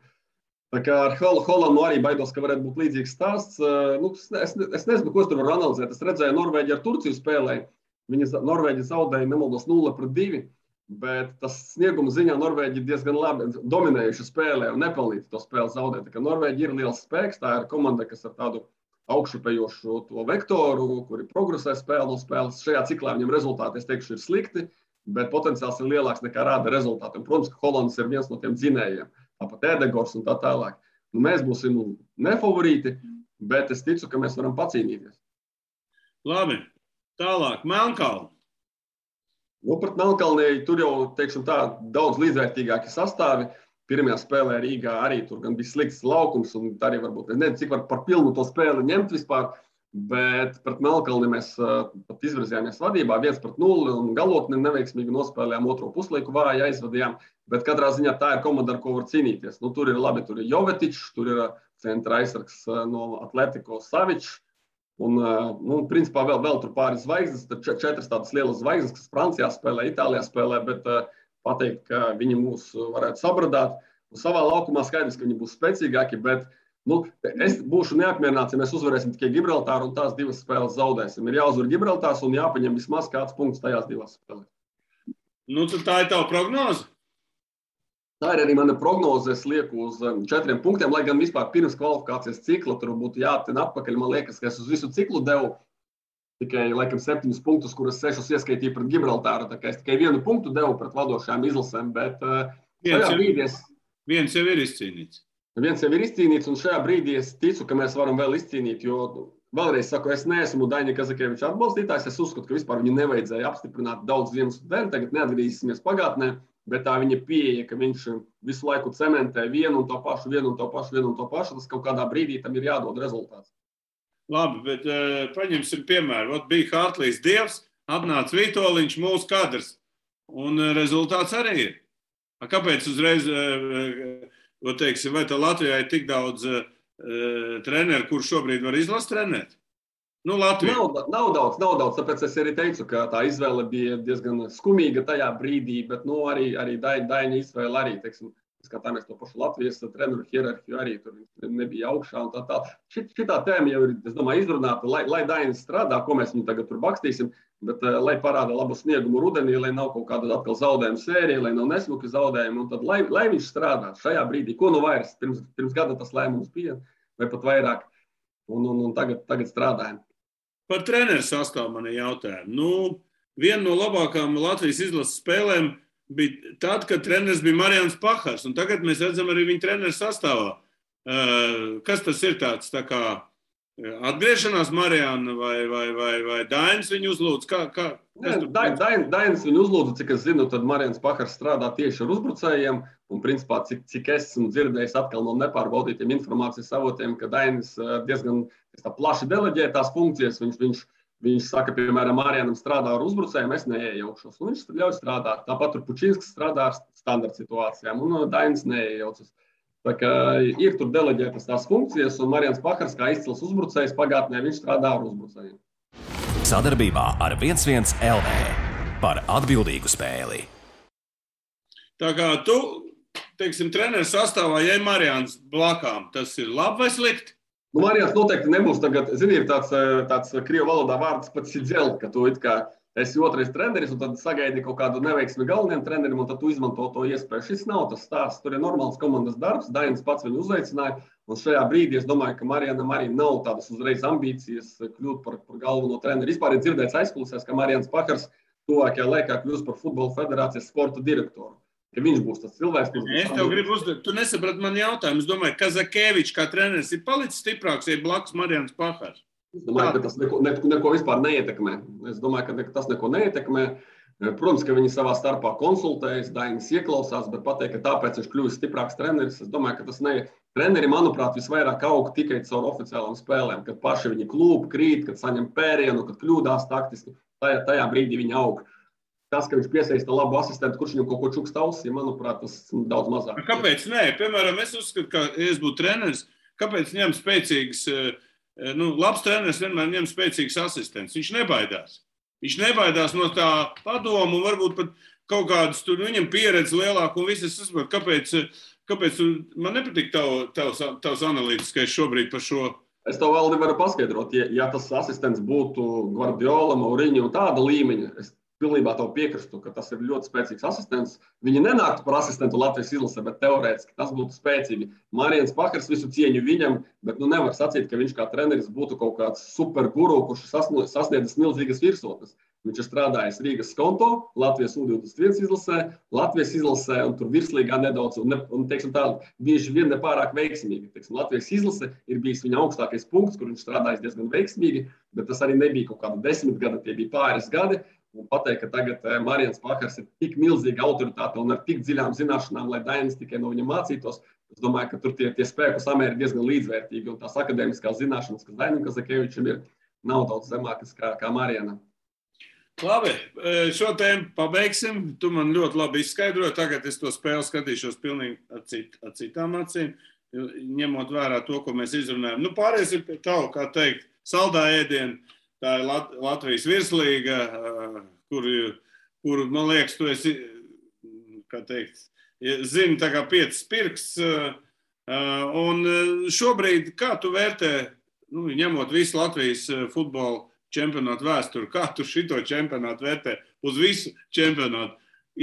Tā kā ar Hollandu arī baidos, ka varētu būt līdzīgs stāsts. Es nezinu, ko es tur varu analizēt. Es redzēju, Norvēģi ar Turciju spēlēja. Norvēģi zaudēja, nemaldos, 0-2, bet tas snieguma ziņā Norvēģi diezgan labi dominējuši spēlē un nepelnīti to spēli zaudēt. Tā kā Norvēģi ir liels spēks, tā ir komanda, kas ar tādu augšupējošu to vektoru, kuri progresē spēli no spēles. Šajā ciklā viņam rezultāti, es teikšu, ir slikti, bet potenciāls ir lielāks nekā rāda rezultāti. Un, protams, ka Hollands ir viens no tiem dzinējiem. Tāpat Edegors un tā tālāk. Mēs būsim nefavorīti, bet es ticu, ka mēs varam pacīnīties. Labi, tālāk, Melnkalne. Pret Melnkalnei tur jau, teiksim tā, daudz līdzvērtīgāki sastāvi. Pirmajā spēlē Rīgā arī tur gan bija slikts laukums, un arī varbūt, nezinu, cik var par pilnu to spēli ņemt vispār. Bet pret Melnkalni mēs pat izvirzījāmies vadībā 1-0 un galotni neveiksmīgi nospēlējām, otro puslaiku vāji aizvadījām. Bet katrā ziņā tā ir komanda, ar ko var cīnīties. Nu, tur ir labi, tur ir Jovetičs, tur ir centra aizsargs no Atletico Savičs. Un, principā vēl tur pāris zvaigznes, tad 4 tādas lielas zvaigznes, kas Francijā spēlē, Itālijā spēlē, bet pateikt, ka viņi mūs varētu sabradāt. Un savā laukumā skaidrs, ka viņi būs spēcīgāki, bet es būšu neapmierināts, ja mēs uzvarēsim tikai Gibraltāru un tās 2 spēles zaudēsim. Ir jāuzvar Gibraltārs un jāpaņem vismaz kāds punkts tajās 2 spēlēs. Tad tā ir tava prognoze? Tā ir arī mana prognoze. Es lieku uz 4 punktiem, lai gan vispār pirms kvalifikācijas cikla tur būtu jāaptina atpakaļ. Man liekas, ka es uz visu ciklu devu tikai, laikam, 7 punktus, kuras 6 ieskaitīju pret Gibraltāru. Tā kā es tikai 1 punktu devu pret vadošajām izlasēm, bet viens jau ir izcīnīts. Viens jau ir izcīnīts, un šajā brīdī es ticu, ka mēs varam vēl izcīnīt, jo vēlreiz saku, es neesmu Daņa Kazakeviča atbalstītājs. Es uzskatu, ka vispār viņu nevajadzēja apstiprināt daudz iemeslu dēļ. Tagad neatgriezīsimies pagātnē, bet tā viņa pieeja, ka viņš visu laiku cementē vienu un to pašu. Tas kaut kādā brīdī tam ir jādod rezultāts. Labi, bet paņemsim piemēru. Bija Hartlīs Dievs, atnāca Vitoļiņš, mūsu kadrs, un rezultāts arī ir. Kāpēc uzreiz... Vai tā Latvijā ir tik daudz treneru, kurš šobrīd var izlast trenēt? Latvijā. Nav daudz, tāpēc es arī teicu, ka tā izvēle bija diezgan skumīga tajā brīdī, bet arī Daņa izvēle arī, teiksim, skatāmies to pašu Latvijas treneru hierarhiju, arī tur nebija augšā un tā. Šitā tēma jau ir, es domāju, izrunāta, lai Daņa strādā, ko mēs viņu tagad tur bakstīsim, bet lai parāda labu sniegumu rudenī, lai nav kaut kāda atkal zaudējuma sērija, lai nav nesmuki zaudējumi, un tad lai viņš strādā šajā brīdī, ko vairs, pirms gada tas lēmums bija, vai pat vairāk, un tagad strādājam. Par treneru sastāvu man ir jautājumi. Viena no labākām Latvijas izlases spēlēm bija tad, kad treneris bija Marians Pahars, un tagad mēs redzam arī viņa treneru sastāvā. Kas tas ir tāds, tā kā atgriešanās Mariana vai Dainis viņu uzlūdz? Dainis viņu uzlūdza, cik es zinu, tad Marians Pahars strādā tieši ar uzbrucējiem, un principā, cik es esmu dzirdējis atkal no nepārbaudītiem informācijas avotiem, ka Dainis diezgan plaši deleģē tās funkcijas. Viņš saka, piemēram, Marianam strādā ar uzbrucējiem, es neiejaukšos, un viņš ļauj strādāt. Tāpat tur Pučinskis strādā ar standarta situācijām, un Dainis neiejaucas. Tā kā ir tur deleģētas tās funkcijas, un Marians Pahars, kā izcils uzbrucējs pagātnē, viņš strādā ar uzbrucējiem. Sadarbībā ar 11 LV par atbildīgu spēli. Tā kā tu, teiksim, treneru sastāvā, ja ir Marians blakām, tas ir labi vai slikti? Marians noteikti nebūs tagad, ir tāds krievu valodā vārds pats sidzēl, ka tu it kā esi otrais treneris, un tad sagaidi kaut kādu neveiksmi galvenajam trenerim, un tad tu izmanto to iespēju. Šis nav tas stāsts. Tur ir normāls komandas darbs. Dainis pats viņu uzaicināja, un šajā brīdī es domāju, ka Marianam arī nav tādas uzreiz ambīcijas kļūt par galveno treneri. Vispār ir dzirdēts aizkulisēs, ka Marians Pahars tuvākajā laikā kļūs par Futbola federācijas sporta direktoru. Ka viņš būs tas cilvēks, kurš... Es tev gribu uzdot, tu nesaprati man jautājumu. Es domāju, Kazakevičs kā treneris ir palicis stiprāks, ja blakus Marians Pahars. Es domāju, ka tas neko vispār neietekmē. Es domāju, ka tas neko neietekmē. Protams, ka viņi savā starpā konsultējas, Dainis ieklausās, bet pateikt, ka tāpēc viņš kļuvis stiprāks treneris. Es domāju, ka tas ne... Treneri, manuprāt, visvairāk aug tikai caur oficiālām spēlēm, kad paši viņi klūp, krīt, kad saņem pērienu, kad kļūdās taktiski. Tajā brīdī viņi aug. Tas, ka viņš piesaista labu asistentu, kurš viņam kaut ko čukst ausī, manuprāt, tas daudz mazāk. Kāpēc nē? Piemēram, es uzskatu, ka, ja es būtu treneris, kāpēc ņem spēcīgs... labs treneris vienmēr ņem spēcīgs asistents. Viņš nebaidās. Viņš nebaidās no tā padomu un varbūt pat kaut kādas tur viņam pieredze lielāka un viss. Es saprotu, kāpēc man nepatīk tavs analītiskais šobrīd par šo. Es tev vēl nevaru paskaidrot. Ja tas asistents būtu Guardiola, Mourinho un tāda līmeņa, es pilnībā tev piekristu, ka tas ir ļoti spēcīgs asistents. Viņi nenāktu par asistentu Latvijas izlasē, bet teorētiski tas būtu spēcīgi. Marians Pahars visu cieņu viņam, bet nevar sacīt, ka viņš kā treneris būtu kaut kāds super guru, kurš sasniedzis milzīgas virsotnes. Viņš ir strādājis Rīgas Skonto, Latvijas U21 izlasē, Latvijas izlasē un tur virslīgā nedaudz, un teiksim tā, bieži vien nepārāk veiksmīgi. Teiksim, Latvijas izlase ir bijis viņa augstākais punkts, kur viņš strādājis diezgan veiksmīgi, bet tas arī nebija kaut kāda 10 gada, tie bija pāris gadi. Un pateikt, ka tagad Marians Pahars ir tik milzīga autoritāte un ar tik dziļām zināšanām, lai Dainis tikai no viņa mācītos. Es domāju, ka tur tie spēku samēri ir diezgan līdzvērtīgi, un tās akadēmiskās zināšanas, kas Dainim Kazakevičam ir, nav daudz zemākas kā Mariana. Labi, šo tēmu pabeigsim. Tu man ļoti labi izskaidroji. Tagad es to spēli skatīšos pilnīgi ar citām acīm, ņemot vērā to, ko mēs izrunājam. Nu, pārēsim pie tavu, kā teikt, saldā ēdienu. Tā ir Latvijas virslīga, kuru, man liekas, tu esi, kā teikt, zini tā kā 5 pirksts. Un šobrīd, kā tu vērtē, ņemot visu Latvijas futbola čempionātu vēsturi, kā tu šito čempionātu vērtē uz visu čempionātu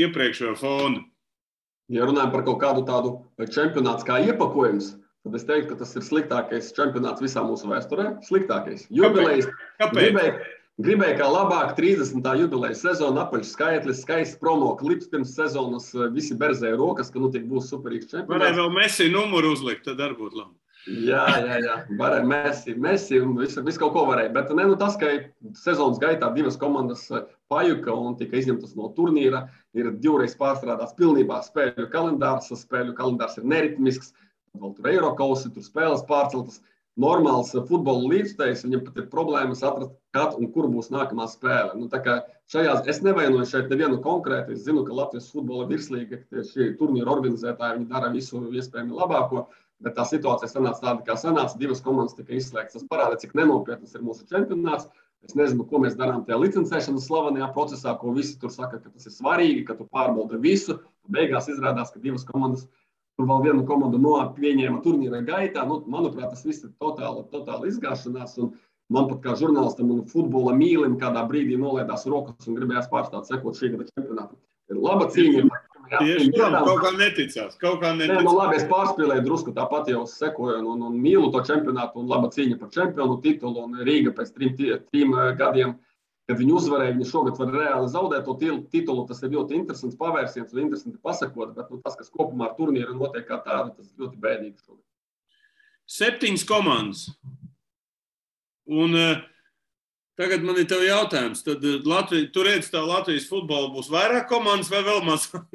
iepriekšējo fonu? Ja runājam par kaut kādu tādu čempionāts kā iepakojums, tad es teiktu, ka tas ir sliktākais čempionāts visā mūsu vēsturē. Sliktākais. Jubilejas. Kāpēc? Gribēju kā labāk 30. jubilejas sezona, apaļš skaitlis, skaists promo klips pirms sezonas, visi berzēja rokas, ka tik būs superīgs čempionāts. Varēja vēl Messi numuru uzlikt, tad arī būtu labi. Jā. Varēja Messi un visu kaut ko varēja. Bet tas, ka sezonas gaitā 2 komandas pajuka un tika izņemtas no turnīra, ir 2 reiz pārstrādāts pilnībā spēļu kalendārs. Spēļu kalendārs ir neritmisks, vēl tur Eirokausi, tur spēles pārceltas. Normāls futbola līdzstājs, viņam pat ir problēmas atrast, kad un kur būs nākamā spēle. Tā kā es nevainoju šeit nevienu konkrēti. Es zinu, ka Latvijas futbola virslīga, šī turnīra organizētāji, viņi dara visu iespējami labāko, bet tā situācija sanāca tāda, kā sanāca. 2 komandas tika izslēgtas. Tas parāda, cik nenopietnas ir mūsu čempionāts. Es nezinu, ko mēs darām tajā licencēšanas slavenajā procesā, ko visi tur saka, ka tas ir svarīgi, ka tu pārbauda visu. Beigās izrādās, ka 2 komandas tur vēl vienu komandu pieņēma turnīra gaitā. Manuprāt, tas viss ir totāli izgāšanās. Un man pat kā žurnālistam un futbola mīlim kādā brīdī nolaidās rokas un gribējās pārstāt sekot šī gada čempionātam. Ir laba cīņa. Kaut kā neticās. Labi, es pārspēlēju drusku, tāpat jau sekoju un mīlu to čempionātu un laba cīņa par čempionu titulu. Un Rīga pēc 3 gadiem, kad viņi uzvarēja, viņi šogad var reāli zaudēt to titulu. Tas ir ļoti interesants pavērsiens un interesanti pasakot, bet tas, kas kopumā ar turnīru notiek kā tādu, tas ir ļoti bēdīgi šogad. 7 komandas. Un tagad man ir tev jautājums. Tad tu redzi, tā Latvijas futbola būs vairāk komandas vai vēl mazāk?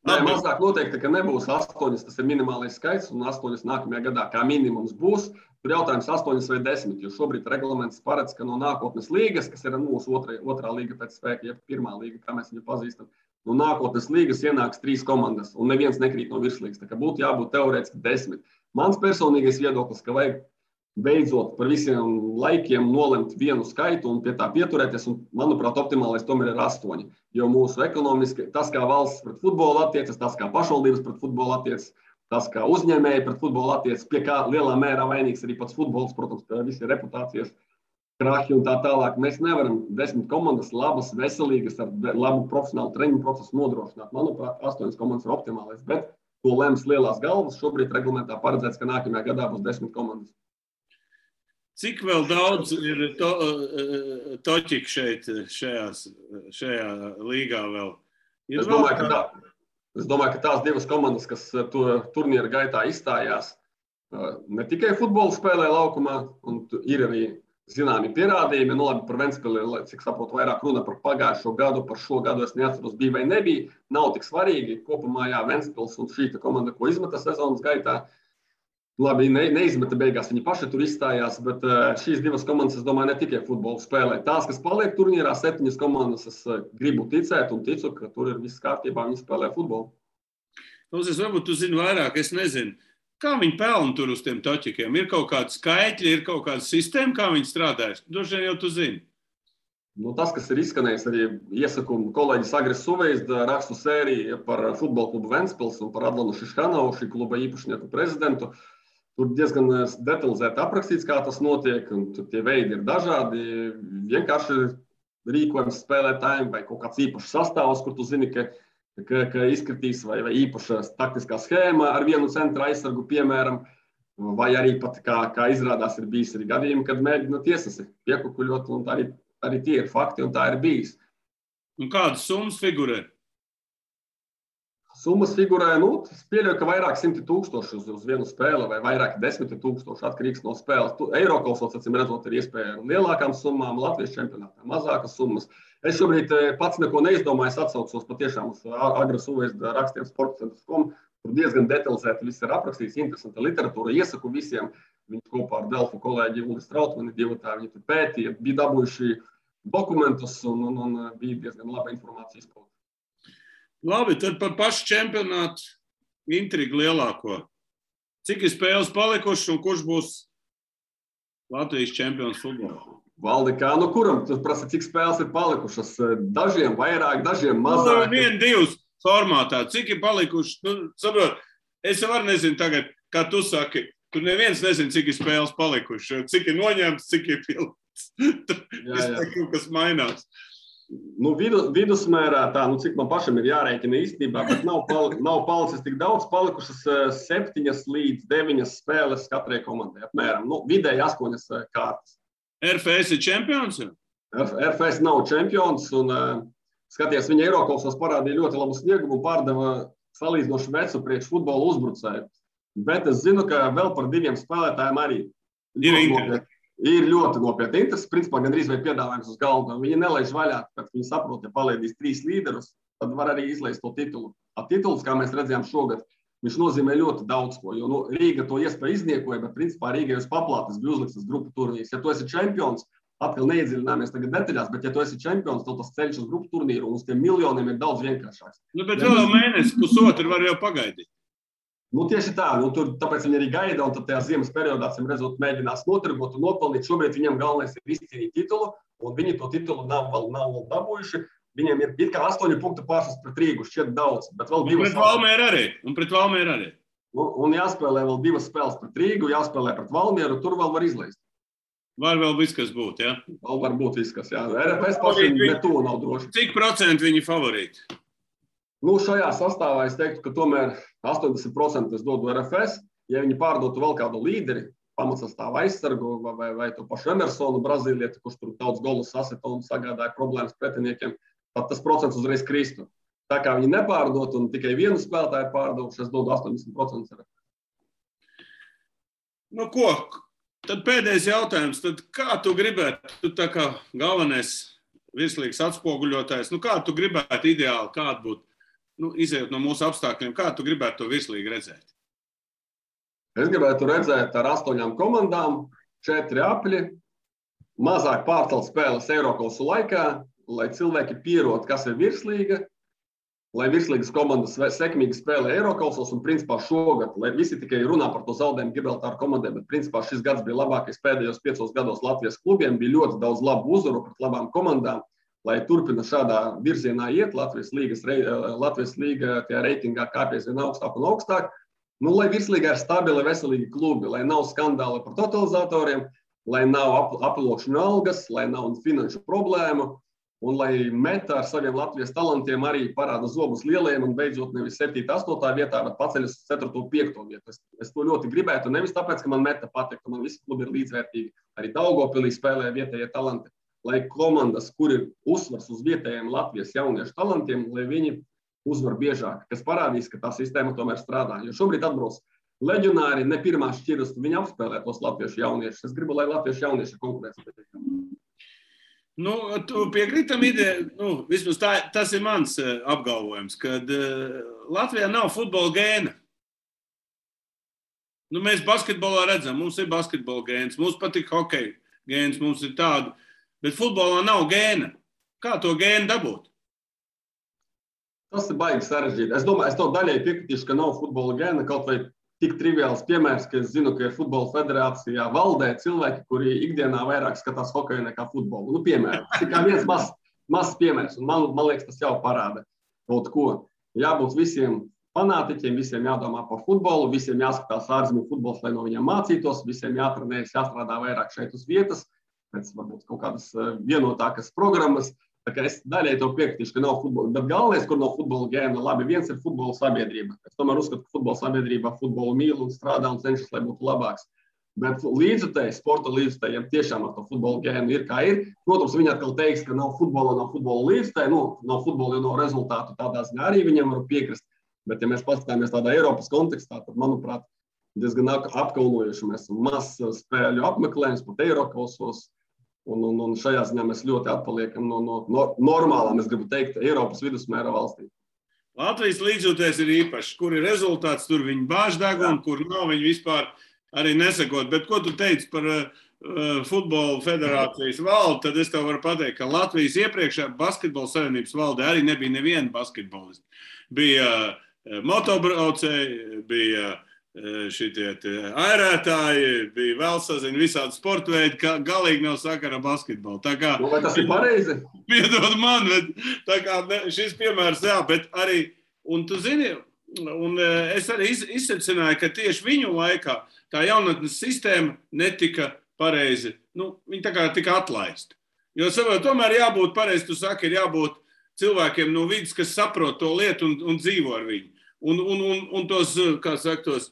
Nē, mazāk noteikti, ka nebūs 8, tas ir minimālais skaits, un 8 nākamajā gadā kā minimums būs. Tur jautājums 8 vai 10, jo šobrīd reglaments paredz, ka no nākotnes līgas, kas ir mūsu otrā līga pēc spēka, ja pirmā līga, kā mēs viņu pazīstam, no nākotnes līgas ienāks 3 komandas, un neviens nekrīt no virslīgas. Tā kā būtu jābūt teorētiski 10. Mans personīgais viedoklis, ka vajag beidzot par visiem laikiem nolemt vienu skaitu un pie tā pieturēties, un, manuprāt, optimālais tomēr ir 8. Jo mūsu ekonomiski, tas, kā valsts pret futbolu attiecas, tas, kā pašvaldības pret futbolu attiecas, tas, kā uzņēmēji pret futbolu attiecas, pie kā lielā mērā vainīgs arī pats futbols, protams, pie visi reputācijas krahi un tā tālāk. Mēs nevaram 10 komandas labas, veselīgas, ar labu profesionālu treniņu procesu nodrošināt. Manuprāt, 8 komandas ir optimālais, bet to lems lielās galvas. Šobrīd reglamentā paredzēts, ka nākamajā gadā būs 10 komandas. Cik vēl daudz ir toķiku šeit, šajā līgā vēl? Es domāju, ka tās 2 komandas, kas turnīra gaitā izstājās, ne tikai futbolu spēlē laukumā, un ir arī zināmi pierādījumi. Labi, par Ventspili, cik saprotu, vairāk runa par pagājušo gadu, par šo gadu es neatceros, bija vai nebija. Nav tik svarīgi. Kopumā Ventspils un šī komanda, ko izmeta sezonas gaitā, labi, neizmeta beigās, viņi paši tur izstājās, bet šīs 2 komandas, es domāju, ne tikai futbolu spēlē. Tās, kas paliek turnīrā, 7 komandas, es gribu ticēt un ticu, ka tur ir viss kārtībā, viņi spēlē futbolu. Varbūt tu zini vairāk, es nezinu. Kā viņi pelna tur uz tiem toķikiem? Ir kaut kādi skaitļi, ir kaut kāda sistēma, kā viņi strādājas? Droši vien jau tu zini. Tas, kas ir izskanējis, arī iesaku kolēģis Agris Suvejs rakstu sēriju par futbola klubu Ventspils un par Adlanu Šiškanovu, šī kluba īpašnieku prezidentu. Tur diezgan detalizēti aprakstīts, kā tas notiek, un tie veidi ir dažādi. Vienkārši rīkojums spēlētājiem vai kaut kāds īpašs sastāvs, kur tu zini, ka izkritīs vai īpaša taktiskā schēma ar vienu centra aizsargu, piemēram, vai arī pat, kā izrādās, ir bijis arī gadījumi, kad mēģina tiesasi piekukuļot, un arī tie ir fakti, un tā ir bijis. Un kādas summas figurē? Summas figurē, es pieļauju, ka vairāk 100 000 uz vienu spēli vai vairāk 10 000 atkarīgs no spēles. Eirokausos, acīm redzot, ir iespēja ar lielākām summām, Latvijas čempionātā mazākas summas. Es šobrīd pats neko neizdomāju, es atsaucos patiešām uz Agris Suvejs rakstiem sportcentrs.com. Tur diezgan detalizēti viss ir aprakstīts, interesanta literatūra. Iesaku visiem Viņi kopā ar Delfu kolēģi Ulis Trautmani divatā, viņi tur pētīja, bija dabūjuši dokumentus un bija diezgan laba informācija izpauda. Labi, tad par pašu čempionātu intrigu lielāko. Cik ir spēles palikušas un kurš būs Latvijas čempions futbolā? Valdi, kā nu kuram? Tu prasa, cik spēles ir palikušas? Dažiem vairāk, dažiem mazāk. 1-2 formātā. Cik ir palikušas? Nu, saprot, es jau arī nezinu tagad, kā tu saki. Tur neviens nezina, cik ir spēles palikušas. Cik ir noņemts, cik ir pilns. Kaut kas mainās. Nu, vidusmērā tā, nu, cik man pašam ir jārēķina īstenībā, bet nav palicis tik daudz, palikušas 7 līdz 9 spēles katrai komandai apmēram. Nu, vidēji 8 kārtas. RFS ir čempions? RFS nav čempions un skaties, viņa Eirokausos parādīja ļoti labu sniegumu un pārdeva salīdzinoši vecu priekš futbola uzbrucēju. Bet es zinu, ka vēl par 2 spēlētājiem arī ir ļoti nopietni interesi. Principā gandrīz vai piedāvājums uz galda. Viņi nelaiž vaļā, kad viņi saprot, ja palaidīs 3 līderus, tad var arī izlaist to titulu. Tituls, kā mēs redzējām šogad, viņš nozīmē ļoti daudz ko, jo Rīga to iespēju izniekoja, bet principā Rīgai uz paplātes bija uzliktas grupu turnīrs. Ja tu esi čempions, atkal neiedziļināmies tagad detaļās, bet ja tu esi čempions, tad tas ceļš uz grupu turnīru un uz tiem miljoniem ir daudz vienkāršāks. Nu, bet vēl mēnesi, pusotru var jau pagaidīt. Nu, tieši tā, tāpēc viņi arī gaida, un tad tajā ziemas periodā, redzot, mēģinās notirgot un nopelnīt. Šobrīd viņiem galvenais ir izcīnīt titulu, un viņi to titulu nav vēl dabūjuši. Viņiem ir it kā 8 punktu pārsvars pret Rīgu, šķiet daudz, bet vēl 2 spēles. Un pret Valmieru arī. Un jāspēlē vēl 2 spēles pret Rīgu, jāspēlē pret Valmieru, tur vēl var izlaist. Var vēl viss, kas būt, jā? Vēl var būt viss, kas, jā. RFS pašiem netuvu nav droši. Cik procentu viņi favorīti? Nu, šajā sastāvā es teiktu, ka tomēr 80% es dodu RFS. Ja viņi pārdotu vēl kādu līderi, pamatsastāvu aizsargu vai to pašu Emersonu, Brazīlieti, kurš tur daudz golus sasita un sagādāja problēmas pretiniekiem, tad tas procents uzreiz kristu. Tā kā viņi nepārdot un tikai vienu spēlētāju pārdotu, es dodu 80% RFS. Nu ko, tad pēdējais jautājums. Tad kā tu gribētu, tu tā kā galvenais virslīgas atspoguļotājs, nu kā tu gribētu ideāli, kāda būtu? Nu, izējot no mūsu apstākļiem, kā tu gribētu to virslīgi redzēt? Es gribētu redzēt ar 8 komandām, 4 apļi, mazāk pārcelt spēles Eirokausu laikā, lai cilvēki pierod, kas ir virslīga, lai virslīgas komandas sekmīgi spēlē Eirokausos un principā šogad, lai visi tikai runā par to zaudējumu Gibraltāru komandai, bet principā šis gads bija labākais pēdējos 5 gados Latvijas klubiem, bija ļoti daudz labu uzvaru pret labām komandām. Lai turpina šādā virzienā iet, Latvijas līga tajā reitingā kāpjas vien augstāk un augstāk. Nu, lai virslīgā ir stabili, veselīgi klubi, lai nav skandāli par totalizatoriem, lai nav aploksņu algas, lai nav finanšu problēmu, un lai meta ar saviem Latvijas talantiem arī parāda zobus lielajiem un beidzot nevis 7. 8. vietā, bet paceļas 4. 5. vietu. Es to ļoti gribētu, nevis tāpēc, ka man meta patīk, ka man visi klubi ir līdzvērtīgi. Arī Daugavpilī spēlē vietējie talanti. Lai komandas, kur ir uzsvars uz vietējiem Latvijas jauniešu talantiem, lai viņi uzvar biežāk, kas parādīs, ka tā sistēma tomēr strādā. Jo šobrīd atbrauc leģionāri, ne pirmā šķiras, viņi apspēlē tos latviešu jauniešus. Es gribu, lai latviešu jaunieši konkurēs. Nu, tu piekrītam ideju, nu, vismaz tas ir mans apgalvojums, kad Latvijā nav futbola gēna. Nu, mēs basketbolā redzam, mums ir basketbola gēns, mums patīk hokeja gēns, mums ir tādu. Bet futbolā nav gēna. Kā to gēnu dabūt? Tas ir baigi sarežģīti. Es domāju, es to daļai piekritīšu, ka nav futbola gēna. Kaut vai tik triviāls piemērs, ka es zinu, ka ir futbola federācijā valdē cilvēki, kuri ikdienā vairāk skatās hokeju nekā futbolu. Nu, piemēram, tas ir kā viens mazs piemērs. Un man liekas, tas jau parāda kaut ko. Jābūt visiem fanātiķiem, visiem jādomā par futbolu, visiem jāskatās ārzemju futbols, lai no viņiem mācītos, visiem jātrenējas, jāstrādā vairāk šeit uz vietas. Pēc varbūt kaut kādas vienotākas programmas. Tā kā es daļai to piekritīšu, ka nav futbola. Bet galvenais, kur nav futbola gēna, labi, viens ir futbola sabiedrība. Es tomēr uzskatu, ka futbola sabiedrībā futbolu mīl un strādā un cenšas, lai būtu labāks. Bet līdzutēji, sporta līdzutējiem tiešām ar to futbola gēnu ir kā ir. Protams, viņi atkal teiks, ka nav futbola līdzutēji, nav futbola, jo nav rezultātu tādā ziņā arī viņiem var piekrist. Bet ja mēs paskatāmies tādā Eiropas kontekstā, tad, manuprāt, diezgan apkaunojuši mēs maz spēļu apmeklējums pat Eirokausos. Un šajā ziņā mēs ļoti atpaliekam no normālām, es gribu teikt, Eiropas vidusmēra valstīm. Latvijas līdzjūtējs ir īpašs. Kur ir rezultāts, tur viņi bāž degunu, kur nav, viņi vispār arī nesakot. Bet ko tu teici par futbola federācijas valdi, tad es tev varu pateikt, ka Latvijas iepriekšējā basketbola savienības valdē arī nebija neviena basketbolisti. Bija motobraucēji, bija šitie airētāji, bija vēl sazina visādi sporta veidi, ka galīgi nav sakara basketbolu. Tā kā, vai tas ir pareizi? Piedod man, bet tā kā šis piemērs, jā, bet arī, un tu zini, un es arī izsecināju, ka tieši viņu laikā tā jaunatnes sistēma netika pareizi, viņi tā kā tika atlaisti. Jo tomēr jābūt pareizi, tu saki, ir jābūt cilvēkiem no vidas, kas saprot to lietu un dzīvo ar viņu. Un tos, kā saka, tos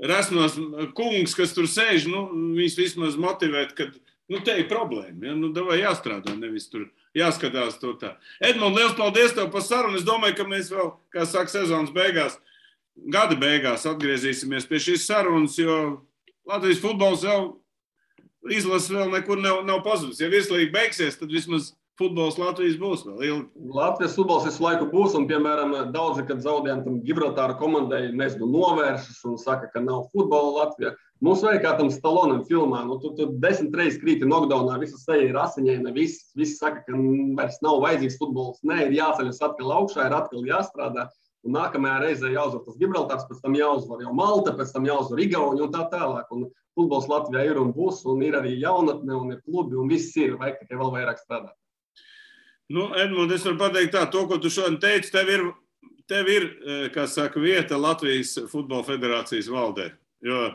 resnos kungs, kas tur sēž, viņus vismaz motivēt, ka, te ir problēma, ja? Davai jāstrādā, nevis tur jāskatās to tā. Edmund, liels paldies tev par sarunu. Es domāju, ka mēs vēl, kā saka, sezonas beigās, gada beigās atgriezīsimies pie šīs sarunas, jo Latvijas futbols jau izlases vēl nekur nav pazudis. Ja virslīga beigsies, tad vismaz futbols Latvijas būs vēl ilgi. Latvijas futbols visu laiku būs, un, piemēram, daudzi, kad zaudējām tam Gibraltāra komandai, novēršas un saka, ka nav futbola Latvijā. Mums vajag kā tam Stallonam filmā, tu 10 reizes krīti knockdownā, visas seja ir asiņaina, visi saka, ka vairs nav vajadzīgs futbols. Nē, ir jāceļas atkal augšā, ir atkal jāstrādā. Un nākamajā reizē jāuzvar tas Gibraltārs, pēc tam jāuzvar jau Malta, pēc tam jāuzvar Igauni un tā tālāk. Un futbols Latvijā ir un būs, un ir arī jaunatne, un ir klubi, un viss ir, vajag tikai vēl vairāk strādāt. Edmund, es varu pateikt tā, to, ko tu šodien teici, tev ir, kā saka, vieta Latvijas futbola federācijas valdē. Jo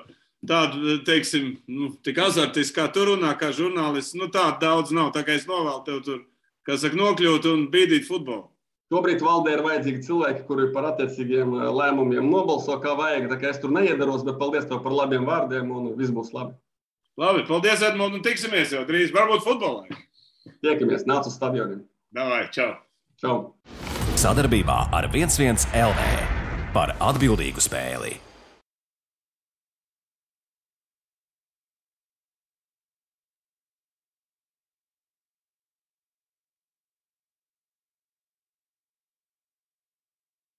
tādu, teiksim, tik azartiski, kā tu runā, kā žurnālists, tādu daudz nav. Tā kā es novēlu tev tur, kā saka, nokļūt un bīdīt futbolu. Šobrīd valdē ir vajadzīgi cilvēki, kuri par attiecīgiem lēmumiem nobalso, kā vajag. Tā kā es tur neiedaros, bet paldies tev par labiem vārdiem un viss būs labi. Labi, paldies, Edmund, un tiksimies jau drīz. Varbūt futbolā. Tiekamies, nāc uz stadioniem. Davai, čau. Čau. Sadarbībā ar 11 LV par atbildīgu spēli.